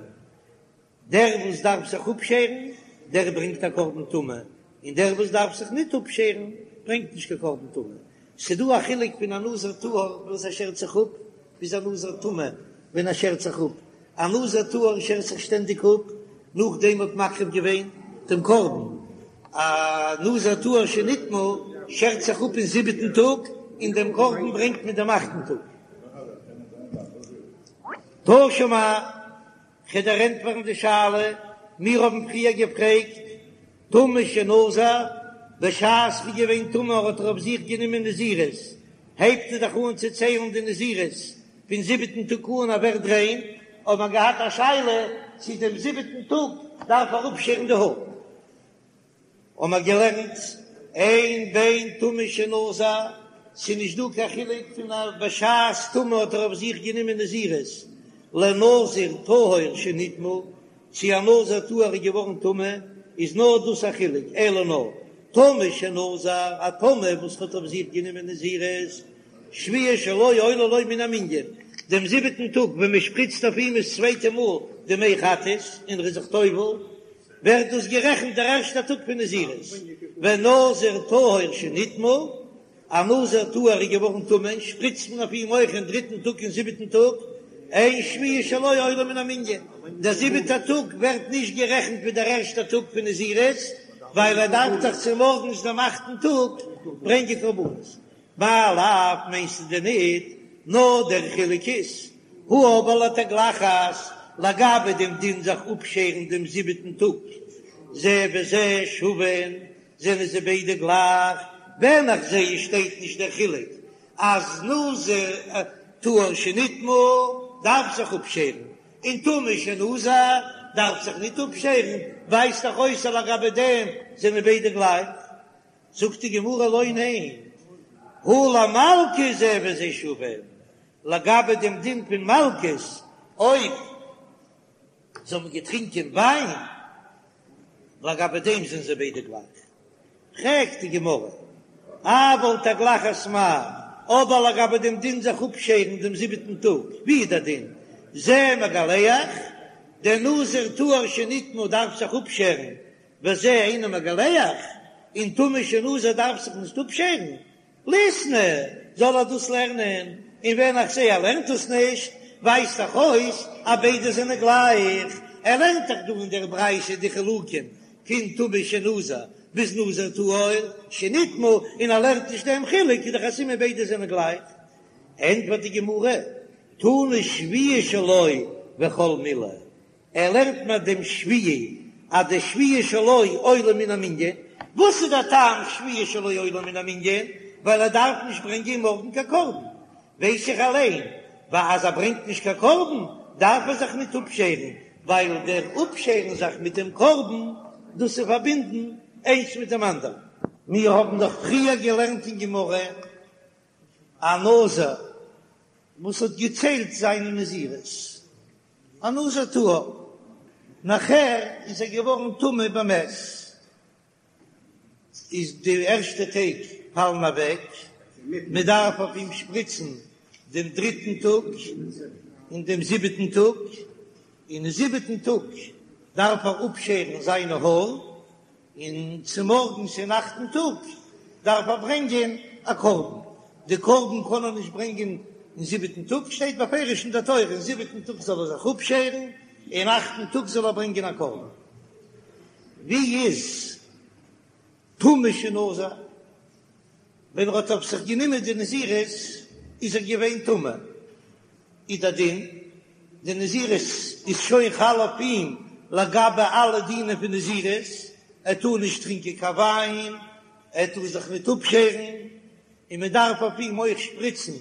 Speaker 1: דער וואס דארף זיך אפשערן, דער ברענגט א קרבן טומאה, און דער וואס דארף זיך ניט אפשערן, ברענגט נישט קיין קרבן טומאה. ס'איז דא א חילוק פון א נזיר טהור וואס ער שערט זיך אפ, ביז א נזיר טמא ווען ער שערט זיך אפ. א נזיר טהור שערט זיך שטענדיג אפ, נאכדעם האט מקריב געווען דעם קרבן. א נזיר טהור שנטמא שערט זיך אפ אין זיבעטן טאג, און דעם קרבן ברענגט מען דעם אכטן טאג. תא שמע. כ'וועל דיר ענטפערן די שאלה, מיר האבן פריער געפרעגט, טמא שנזר, בשעת ר'איז געווען טמא האט ער אויף זיך גענומען נזירות, הייבט ער דאך אן צו ציילן די נזירות פון זיבעטן טאג אן ער ווערט ריין, האט מען געהאט א שאלה צו דעם זיבעטן טאג דארף ער אפשערן די האר. האבן מיר געלערנט, אין בין טמא שנזר, ס'איז נישט דא קיין חילוק פון א בשעת טומאה האט ער אויף זיך גענומען נזירות, לנזיר טהור שנטמא, צו א נזיר טהור איז געווארן טמא, איז נאר דאס א חילוק, אלא נאר טמא שנזר, א טמא וואס האט אויף זיך גענומען נזירות, שביעי שלו עולה לו מן המנין, דעם זיבעטן טאג ווען מען שפריצט אויף אים עס צווייטע מאל די מי חטאת און ער איז זיך טובל, ווערט דאס גערעכנט דער ערשטער טאג פון נזירות, ונזיר טהור שנטמא, א נזיר טהור איז געווארן טמא, שפריצט מען אויף אים אויך אין דריטן טאג און זיבעטן טאג, אין שביעי שלו עולה מן המנין, דער זיבעטער טאג ווערט נישט גערעכנט ווי דער ערשטער טאג פון נזירות, ווייל ער דארף דאך צומארגנס דעם אכטן טאג ברענגען קרבנות. מאי לאו מיינסטו דען ניט? נאר דער חילוק איז, הא אבער לתגלחת, לגבי דעם דין זיך אפשערן דעם זיבעטן טאג, זה וזה שווין, זענען זיי ביידע גלייך, ווען איך זע עס שטייט נישט דער חילוק אז נזיר טהור שנטמא דארף זיך אפשערן, און טמא שנזר דארף זיך ניט אפשערן, ווייזט דאך אויס אז לגבי דעם זענען ביידע גלייך. זאגט די גמרא לא ניין, הא למלקות זה וזה שווין, לגבי דעם דין פון מלקות, אויב זיי האבן געטרינקען וויין, לגבי דעם זענען זיי ביידע גלייך. פרעגט די גמרא, אבל תגלחת מאי, אבער לגבי דעם דין זיך אפשערן דעם זיבעטן טאג, ווי איז דער דין? זה מגלח, דער נזיר טהור שנטמא דארף זיך אפשערן וזה אינו מגלח, און טמא שנזר דארף זיך נישט אפשערן, ליתני, זאל ער דאס לערנען, און ווען איך זע ער לערנט עס נישט, ווייזט דאך אויס אז ביידע זענען גלייך, ער לערנט דאך דא אין דער ברייתא די חילוקים פון טמא שנזר ביז נזיר טהור שנטמא, און ער לערנט נישט דעם חילוק, איז דאך א סימן ביידע זענען גלייך. ענטפערט די גמרא, תנא שביעי שלו וכל מילי, ער לערנט מיר דעם שביעי אז די שביעי שלו עולה מן המנין, וואס איז דער טעם שביעי שלו עולה מן המנין? ווייל ער דארף נישט ברענגען מארגן קיין קרבן, ווייס איך אליין ווייל אז ער ברענגט נישט קיין קרבן. דארף ער זיך ניט אפשערן, ווייל דער אפשערן זיך מיט דעם קרבן, דאס איז פארבינדן איינס מיט דעם אנדערן. מיר האבן דאך פריער געלערנט אין גמרא א נזיר וואס האט געציילט זיינע נזירות, א נזיר טהור, נאכער איז ער געווארן טמא במת, איז די ערשטע טעג פאלן אוועק, מען דארף אויף אים שפריצן דעם דריטן טאג און דעם זיבעטן טאג, און אין זיבעטן טאג דארף ער אפשערן זיינע האר, און צומארגנס אין אכטן טאג דארף ער ברענגען א קרבן, די קרבן קען ער נישט ברענגען אין זיבעטן טאג, שטייט בפירוש אין דער תורה, אין זיבעטן טאג זאל ער זיך אפשערן, אין אכטן טאג זאל ער ברענגען א קרבן. ווי איז טמא שנזר? ווען ער האט אויף זיך גענומען די נזירות איז ער געווען טמא, איז דער דין, די נזירות איז שוין חל אויף אים לגבי אלע דינים פון נזירות, ער טאר נישט טרינקען קיין וויין, ער טאר זיך ניט אפשערן, און מען דארף אויף אים אויך שפריצן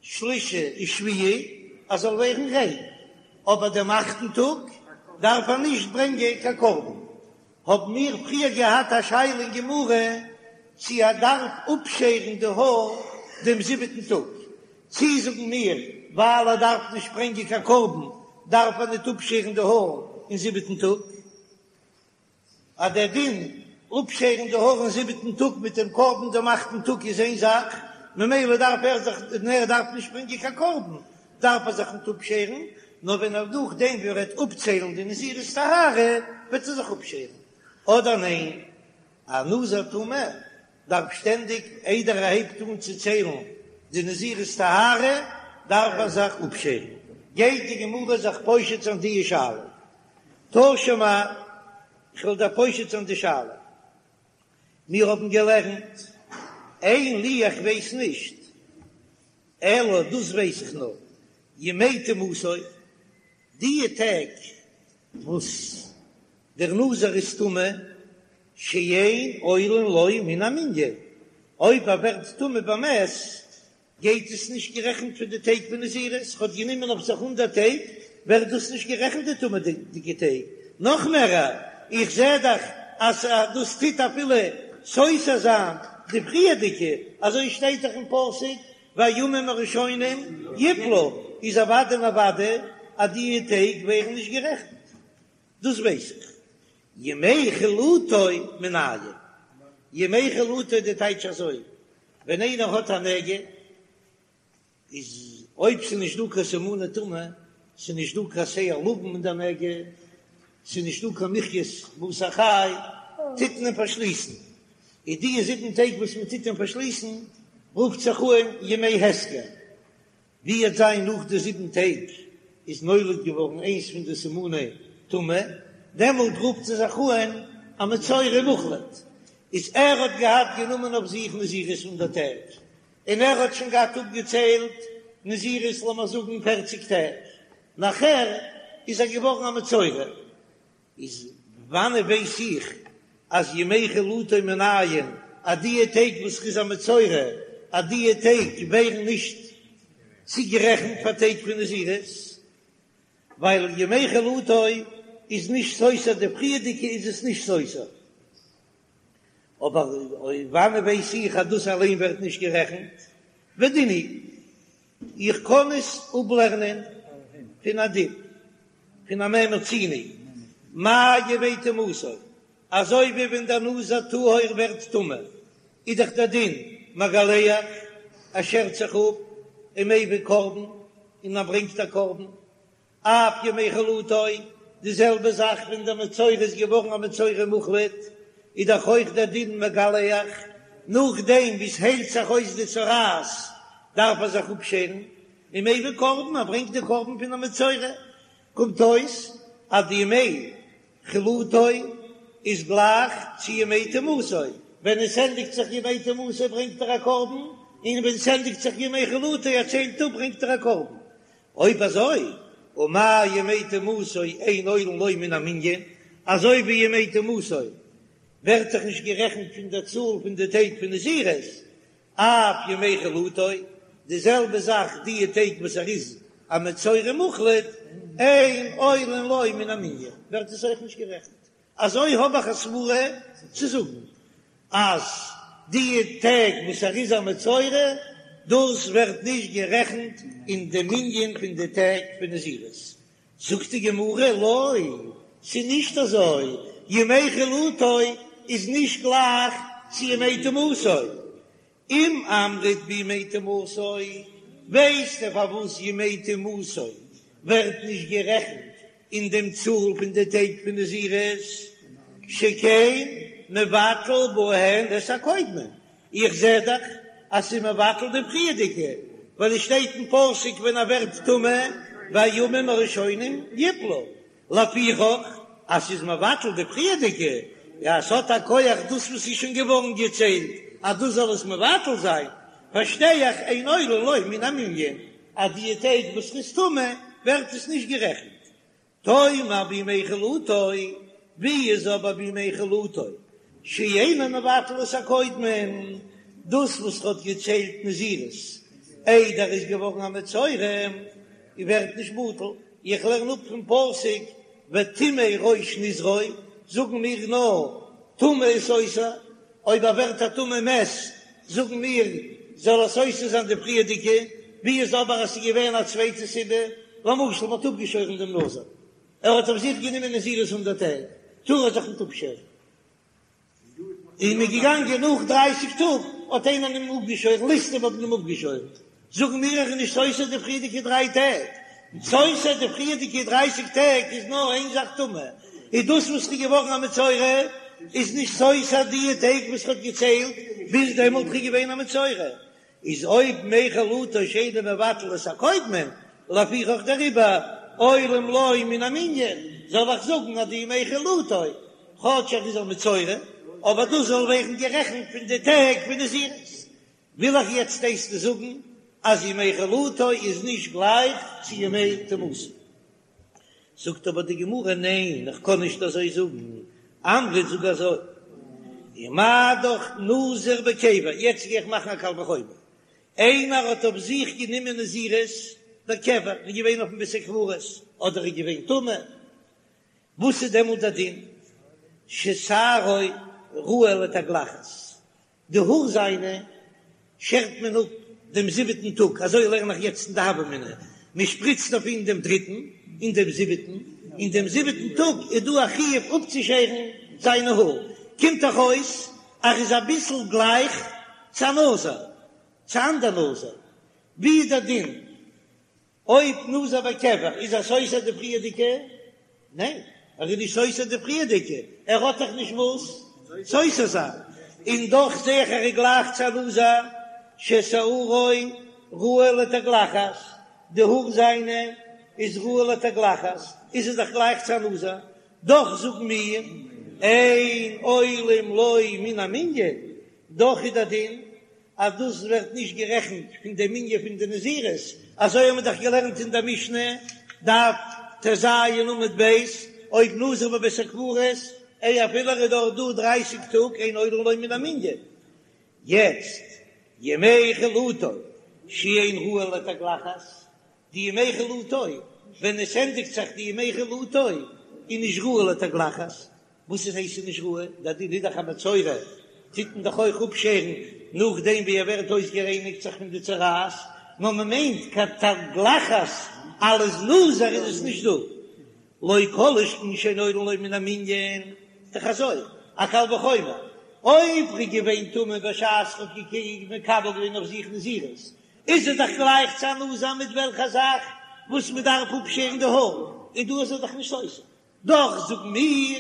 Speaker 1: שלישי און שביעי אז ער זאל ווערן ריין, אבער דעם אכטן טאג דארף ער נישט ברענגען קיין קרבן. האבן מיר פריער געהאט א שאלה אין גמרא צי ער דארף אפשערן די האר דעם זיבעטן טאג, צי זאגן מיר ווייל ער דארף נישט ברענגען קיין קרבן דארף ער ניט אפשערן די האר אין זיבעטן טאג. אז דער דין אפשערן די האר אין זיבעטן טאג מיט דעם קרבן דעם אכטן טאג איז איין זאך, ממילא דארף ער זיך, און ער דארף נישט ברענגען קיין קרבן, דארף ער זיך ניט אפשערן, נאר ווען ער נאכדעם ווי ער וועט אפציילן די נזירות טהרה וועט ער זיך אפשערן, אדער ניין, א נזיר טמא דארף שטענדיג איידער ער הייבט אן צו ציילן די נזירות טהרה דארף ער זיך אפשערן, גייט די גמרא זיך פושט זיין די שאלה. תא שמע, איך וועל דיר פושט זיין די שאלה. מיר האבן געלערנט, אין לי איך ווייס נישט, אלא דאס ווייס איך נאר, ימי טומאתו, די טעג וואס דער נזיר איז טמא, שאין עולין לו מן המנין, אויב ער ווערט טמא במת, גייט עס נישט גערעכנט פון די טעג פון נזירות, האט גענומען אויף זיך הונדערט טעג, ווערט דאס נישט גערעכנט די טומאה'דיגע טעג, נאך מער, איך זע דאך אז דאס טוט אפילו סותר זיין די פריערדיגע, אזוי שטייט דאך אין פסוק והימים הראשונים יפלו, איז אוודאי און אוודאי אז די טעג ווערן נישט גערעכנט, דאס ווייס איך. ימי חלוטו מנין? ימי חלוטו די טייטש אזוי, ווען איינער האט א נגע, איז אויב ס'איז נישט דא קיין סימני טומאה, ס'איז נישט דא קיין שער לבן אין די נגע, ס'איז נישט דא קיין מחית בשר חי, טוט מען אים פארשליסן. איז די זיבן טעג וואס מען טוט אים פארשליסן, רופט זיך אן ימי הסגר. ווי וועט זיין נאך די זיבן טעג איז נולד געווארן איינס פון די סימני טומאה, דעמאלט רופט זי זיך אן א מצורע מוחלט, איז ער האט געהאט גענומען אויף זיך נזירות הונדערט טעג, און ער האט שוין געהאט אפגעציילט נזירות לאמיר זאגן פערציג טעג, נאכער איז ער געווארן א מצורע, איז וואנען ווייס איך אז ימי חלוטו מנין אז דיע טעג וואס ר'איז א מצורע אז דיע טעג ווערן נישט צוגערעכנט פאר טעג פון נזירות ווייל ימי חלוטו איז נישט סותר די פריערדיגע איז עס נישט סותר אבער וואנען ווייס איך אז דאס אליין ווערט נישט גערעכנט ודין הוא איך קען עס אפלערנען פון א דין פון א מה מצינו, מה ימי טומאתו, אזוי ווי ווען דער נזיר טהור ווערט טמא, איז דאך דער דין מגלח, ער שערט זיך אפ ומביא קרבן, און ער ברענגט א קרבן, אף ימי חלוטו, די זעלבע זאך ווען דער מצורע איז געווארן א מצורע מוחלט, איז דאך אויך דער דין מגלח, נאכדעם ווי עס היילט זיך אויס די צרעת דארף ער זיך אפשערן, ומביא קרבן, ער ברענגט די קרבן פון א מצורע, קומט אויס אז די ימי חלוטו איז גלייך צו ימי טומאתו, ווען עס ענדיגט זיך ימי טומאתו ברענגט ער א קרבן, און ווען עס ענדיגט זיך ימי חלוטו ער ציילט אפ ברענגט ער א קרבן, אויב אזוי, ומה ימי טומאתו אין עולין לו מן המנין, אזוי ווי ימי טומאתו ווערט דאך נישט גערעכנט פון דער צאל פון די טעג פון נזירות, אף ימי חלוטו, די זעלבע זאך די טעג וואס ער איז. א מצורע מוחלט, אין עולין לו מן המנין, ווערט עס אויך נישט גערעכנט. אזוי האב איך א סברה צו זאגן אז די טעג וואס ער איז א מצורע דאס ווערט נישט גערעכנט אין די מנין פון די טעג פון נזירות. זאגט די גמרא לא, ס'איז נישט אזוי, ימי חלוטו איז נישט גלייך צו ימי טומאתו, אם אמרת בימי טומאתו, ווייסטו פארוואס ימי טומאתו ווערט נישט גערעכנט אין דעם צאל פון די טעג פון נזירות? שכן מבטל בהן את הקודמין, איך זע דאך אז ס'איז מבטל די פריערדיגע, ווייל עס שטייט אין פסוק ווען ער ווערט טמא והימים הראשונים יפלו, לפיכך אז ס'איז מבטל די פריערדיגע, יא ס'האט א כח דאס וואס איז שוין געווארן געציילט אז דאס זאל עס מבטל זיין, פארשטיי איך אין עולין לו מן המנין אז די טעג וואס ר'איז טמא ווערט עס נישט גערעכנט. תאמר בימי חלוטו, ווי איז אבער בימי חלוטו שאינו מבטל את הקודמין, דאס וואס ר'האט געציילט נזירות איידער ער איז געווארן א מצורע ווערט נישט בטל, איך לערן אפ פון פסוק וטמא ראש נזרו, זאגן מיר נאר טומאה איז סותר, אויב ער ווערט א טמא מת זאגן מיר זאל ער סותר זיין די פריערדיגע, ווי איז אבער אז ס'איז געווען א צווייטע סיבה, למשל מ'האט אפגעשוירן דעם נזיר, ער האט אויף זיך גענומען נזירות הונדערט טעג, טאר ער זיך ניט אפשערן. און מ'איז געגאנגען נאך דרייסיג טאג האט איינער אים אפגעשוירן, ליסטים האבן אים אפגעשוירן, זאגן מיר ער איז נישט סותר די פריערדיגע דריי טעג, סותר די פריערדיגע דרייסיג טעג איז נאר איין זאך טומאה, איז דאס וואס ר'איז געווארן א מצורע איז נישט סותר די טעג וואס ר'האט געציילט ביז דעמאלט ר'איז געווען א מצורע, איז אויב ימי חלוטו שאינו מבטל את הקודמין, לפיכך דעריבער עולין לו מן המנין, זאל איך זאגן אז די ימי חלוטו, כאטש ער איז א מצורע, אבער דאס זאל ווערן גערעכנט פון די טעג פון נזירות. וויל איך יעצט דאס זאגן אז ימי חלוטו איז נישט גלייך צו ימי טומאתו. זאגט אבער די גמרא ניין איך קען נישט אזוי זאגן, אמרת זאג אזוי, ומה דאך נזיר בקבר, יעצט גיי איך מאכן א קל וחומר, איינער האט אויף זיך גענומען נזירות בקבר, איז געווען אויפן בית הקברות, אדער איז געווען טמא, וואס איז דעמאלט דער דין? ששערו ראוי לתגלחת, די האר זיינע שערט מען אפ דעם זיבעטן טאג, אזוי לערן איך יעצט אין די הוה אמינא, מען שפריצט אויף אים דעם דריטן און דעם זיבעטן, און דעם זיבעטן טאג איז דא א חיוב אפצושערן זיינע האר, קומט דאך אויס אז ער איז אביסל גלייך צו א נזיר, צו אנדער נזיר, ווי איז דער דין? אויב נזיר בקבר איז ער סותר די פריערדיגע? ניין, ער איז נישט סותר די פריערדיגע, ער האט דאך נישט וואס סותר זיין, און דאך זעה איך ער איז גלייך צו א נזיר ששערו ראוי לתגלחת, די האר זיינע איז ראוי לתגלחת, איז ער דאך גלייך צו א נזיר, דאך זאגן מיר אין עולין לו מן המנין, דאך איז דער דין אז דאס ווערט נישט גערעכנט פון די מנין פון די נזירות, אזוי האבן מיר דאך געלערנט אין דער משנה, דף טז עמוד ב', אויב נזיר בבית הקברות, איי אפילו ער איז דארט דא דרייסיג טאג אין עולין לו מן המנין. יעצט, ימי חלוטו שאין ראוי לתגלחת, די ימי חלוטו, ווען עס ענדיגט זיך די ימי חלוטו, איז נישט ראוי לתגלחת, וואס איז הייסט נישט ראוי? דער דין איז דאך א מצורע, טוט מען דאך אויך אפשערן נאכדעם ווי ער ווערט אויסגערייניגט זיך פון די צרעת, נאר מען מיינט קיין תגלחת אלס נזיר איז עס נישט דא, לא כל שכן שאין עולין לו מן המנין, דאך אזוי א קל וחומר, אויב ר'איז געווען טמא בשעת ר'האט מקבל געווען אויף זיך נזירות, איז ער דאך גלייך צו א נזיר מיט וועלכע זאך וואס מען דארף אפשערן די האר, און דא איז ער דאך נישט סותר. דאך זאגן מיר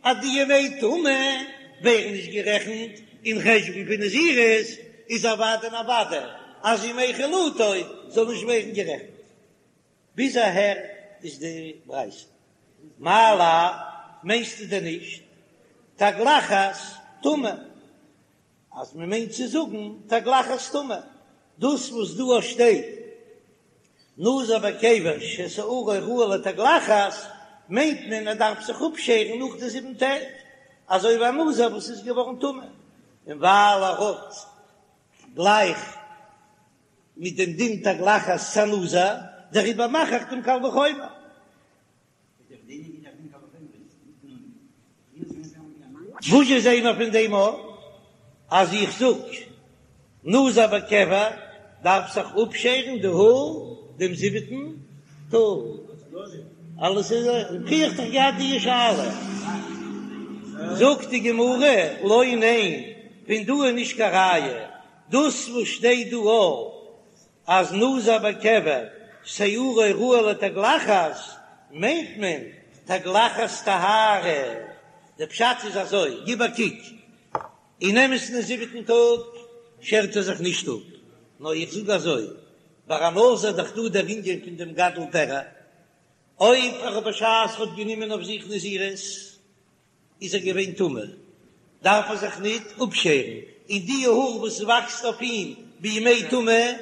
Speaker 1: אז די ימי טומאה ווערן נישט גערעכנט אין חשבון פון נזירות, איז אוודאי און אוודאי אז ימי חלוטו זאל נישט ווערן גערעכנט. ביז אהער איז די ברייתא. מאי לאו, מיינסטו דען נישט תגלחת טומאה? אז מען מיינט צו זאגן תגלחת טומאה, דאס וואס דא שטייט נזיר בקבר ששערו ראוי לתגלחת, מיינט מען ער דארף זיך אפשערן נאך די זיבן טעג, אזוי ווי א נזיר וואס איז געווארן טמא, און ווייל ער האט גלייך מיט דעם דין תגלחת צו א נזיר. דעריבער מאך איך דעם קל וחומר. וואס זשע זעהן מיר פון דעם אויף אז איך זאג נזיר בקבר דארף זיך אפשערן די האר דעם זיבעטן טאג? אלעס איז פריער האט דאך געהאט די שאלה, זאגט די גמרא לא ניין, פון דא איז נישט קיין ראיה, דאס וואס שטייט דא אויף אז נזיר בקבר שערו ראוי לתגלחת מיינט מען תגלחת טהרה, די פשט איז אזוי, גיב א קוק, אין אמת'ן אין זיבעטן טאג שערט ער זיך נישט אפ, נאר איך זאג אזוי, ביי א נזיר איז דאך דא דער ענין פון דעם גדל פרע, אויב ער האט בשעת ער האט גענומען אויף זיך נזירות, איז ער געווען טמא, דארף ער זיך ניט אפשערן, און די האר וואס וואקסט אויף אים בימי טומאה,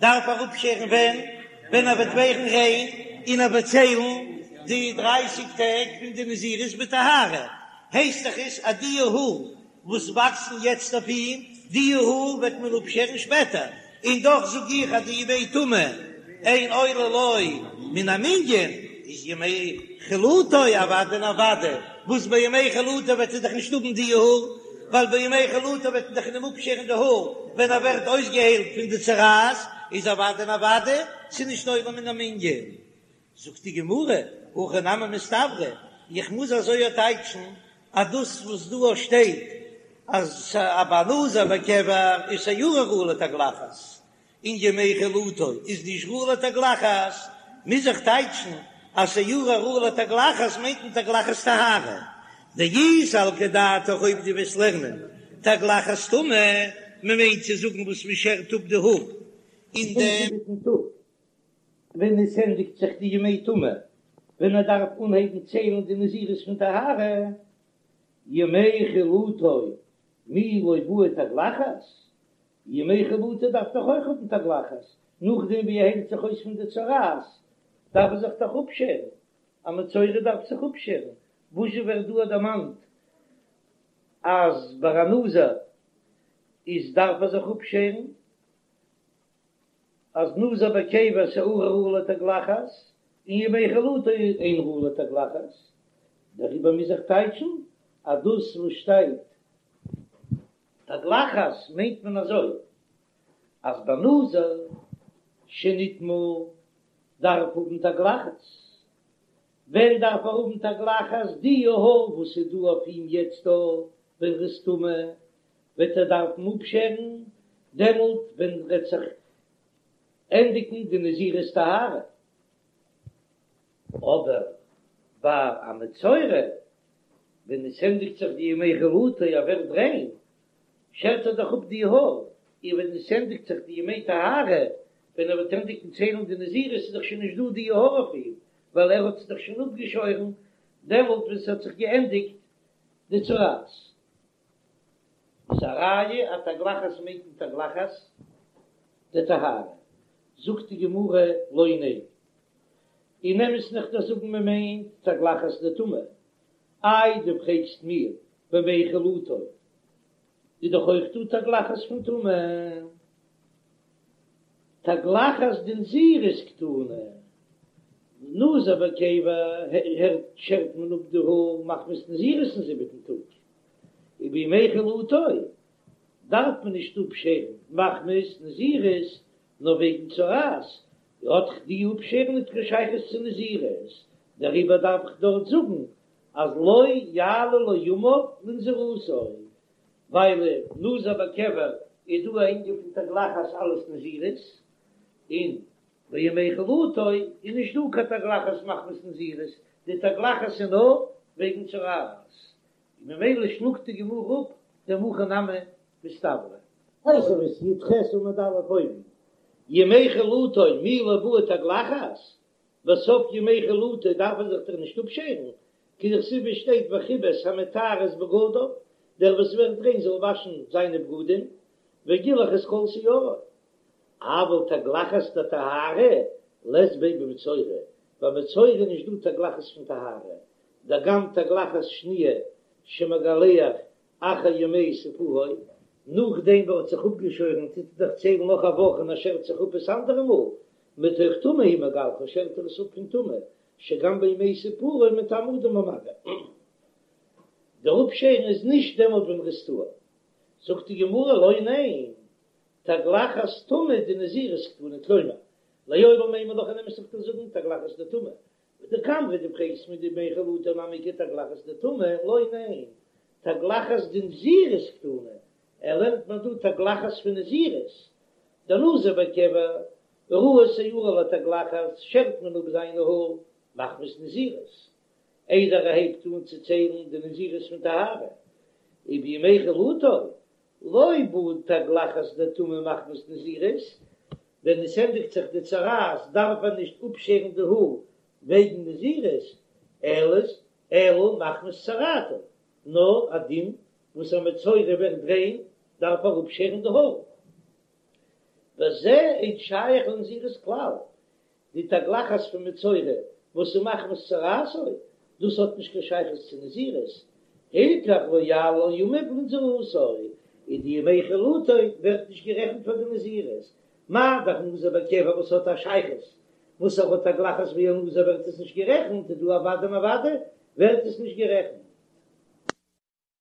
Speaker 1: דארף ער אפשערן ווען? ווען ער וועט ווערן ריין, און ער וועט ציילן די דרייסיג טעג פון די נזירות בטהרה, הייסט דאך עס אז די האר וואס וואקסן יעצט אויף אים, די האר וועט מען אפשערן שפעטער, און דאך זאג איך אז די ימי טומאה אין עולה לו מן המנין, איז ימי חלוטו אוודאי און אוודאי, וואס ביי ימי חלוטו וועט ער דאך נישט האבן די האר, ווייל ביי ימי חלוטו וועט מען דאך אים אפשערן די האר ווען ער ווערט אויסגעהיילט פון די צרעת, איז אוודאי און אוודאי ס'איז נישט עולה מן המנין. זאגט די גמרא, הכי נמי מסתברא, איך מוז אזוי טייטשן אז דאס וואס דא שטייט אז ביי נזיר בקבר איז שערו ראוי לתגלחת, און ימי חלוטו איז נישט ראוי לתגלחת, מוז איך טייטשן אז שערו ראוי לתגלחת מיינט מען תגלחת טהרה, דאי סלקא דעתך אויב דו וועסט לערנען תגלחת טומאה, מען מיינט צו זאגן וואס מען שערט אפ די האר אין דעם זיבעטן טאג. ווען עס ענדיגט זיך די ימי טומאה, ווען ער דארף אנהייבן ציילן די נזירות פון טהרה, ימי חלוטו מי לא בעי תגלחת, ימי חלוטו דארף דאך אויך האבן תגלחת, נאכדעם ווי ער היילט זיך אויס פון די צרעת, דארף ער זיך דאך אפשערן, א מצורע דארף זיך אפשערן, וואזשע ווערט דא דערמאנט אז ביי א נזיר איז דארף ער זיך אפשערן? אז נזיר בקבר שערו ראוי לתגלחת, און ימי חלוטו אין ראוי לתגלחת, דעריבער מוז איך טייטשן אז דאס וואס שטייט תגלחת מיינט מען אזוי, אז ביי נזיר שנטמא דארף האבן תגלחת, ווען דארף ער האבן תגלחת? די האר וואס איז דא אויף אים יעצט דא ווען ר'איז טמא, וועט ער דארפן אפשערן דעמאלט ווען וועט זיך ענדיגן די נזירות טהרה, אבער ביי א מצורע ווען עס ענדיגט זיך די ימי חלוטו ער ווערט ריין, שערט ער דאך אפ די האר, און ווען עס ענדיגט זיך די ימי טהרה, ווען ער וועט ענדיגן ציילן די נזירות איז דאך שוין נישט דא די האר אויף אים, ווייל ער האט עס דאך שוין אפגעשוירן דעמאלט ווען ס'האט זיך געענדיגט די צרעת. איז א ראיה אז תגלחת מיינט מען תגלחת דטהרה, זאגט די גמרא לא ניין, אין אמת'ן איך דארף זאגן מען מיינט תגלחת דטומאה, איי דו פרעגסט מיר בימי חלוטו איז דאך אויך דא תגלחת פון טומאה, תגלחת דנזירות קתני, נזיר בקבר הערט שערט מען אפ די האר מחמת נזירות אין זיבעטן טאג, ובימי חלוטו דארף מען נישט אפשערן מחמת נזירות נאר וועגן צרעת, האט דאך די אפשערן ניט קיין שייכות צו נזירות, דעריבער דארף איך דארט זאגן אז לא יעלו לו ימיו לנזירותו, ווייל נזיר בקבר איז דא א ענין פון תגלחת אלס נזירות, און בימי חלוטו איז נישט דא קיין תגלחת מחמת נזירות, די תגלחת איז נאר וועגן צרעת, און ממילא שלאגט די גמרא אפ דעם הכי נמי מסתברא. תוספות י"ח עמוד א' אויבן, ימי חלוטו מי לא בעי תגלחת, בסוף ימי חלוטו דארף ער זיך דאך נישט אפשערן, כדכתיב שטייט וכבס המטהר את בגדיו, דער וואס ווערט ריין זאל וואשן זיינע בגדים, וגילח את כל שערו. אבל תגלחת דטהרה לית ביה במצורע, ביי מצורע איז נישט דא תגלחת פון טהרה, דגם תגלחת שניה שמגלח אחר ימי ספרו, נאכדעם וואס ער האט זיך אפגעשוירן טוט ער דאך ציילן נאך א וואך און ער שערט זיך אפ עס אנדערע מאל. מתוך טומאה הוא מגלחה, שערט ער עס אפ פון טומאה, שגם בימי ספורו מטמא אדם במגע. דער אפשערן איז נישט דעמאלט ווען ער איז טהור. זאגט די גמרא לא ניין, תגלחת טומאה דנזירות קתני, כלומר, לעולם אימא לך אין אמת איך וועל זאגן תגלחת דטומאה, ודקאמרת דו פרעגסט מיר דבימי חלוטו נמי איכא תגלחת דטומאה, לא ניין, תגלחת דנזירות קתני, ער לערנט מיר דא תגלחת פון נזירות, דנזיר בקבע, ראוי שערו לתגלחת, שערט מען אפ זיינע האר מחמת נזירות, איידער ער הייבט אן צו ציילן די נזירות פון טהרה, ובימי חלוטו, לא בעי תגלחת דטומאה מחמת נזירות, ווען עס ענדיגט זיך די צרעת דארף ער נישט אפשערן די האר וועגן נזירות, אלא אלא מחמת צרעתו, נאר א דין וואס א מצורע ווערט ריין דארף ער אפשערן די האר. וזה אין שייך לנזירות כלל, די תגלחת פון מצורע וואס איז מחמת צרעתו, דאס האט נישט קיין שייכות צו נזירות, הילכך לא יעלו ימיו לנזירותו, און די ימי חלוטו ווערט נישט גערעכנט פאר די נזירות, מה דאך נזיר בקבע וואס האט א שייכות וואס ער האט תגלחת ווי א נזיר ווערט עס נישט גערעכנט, איז דא אוודאי און אוודאי ווערט עס נישט גערעכנט.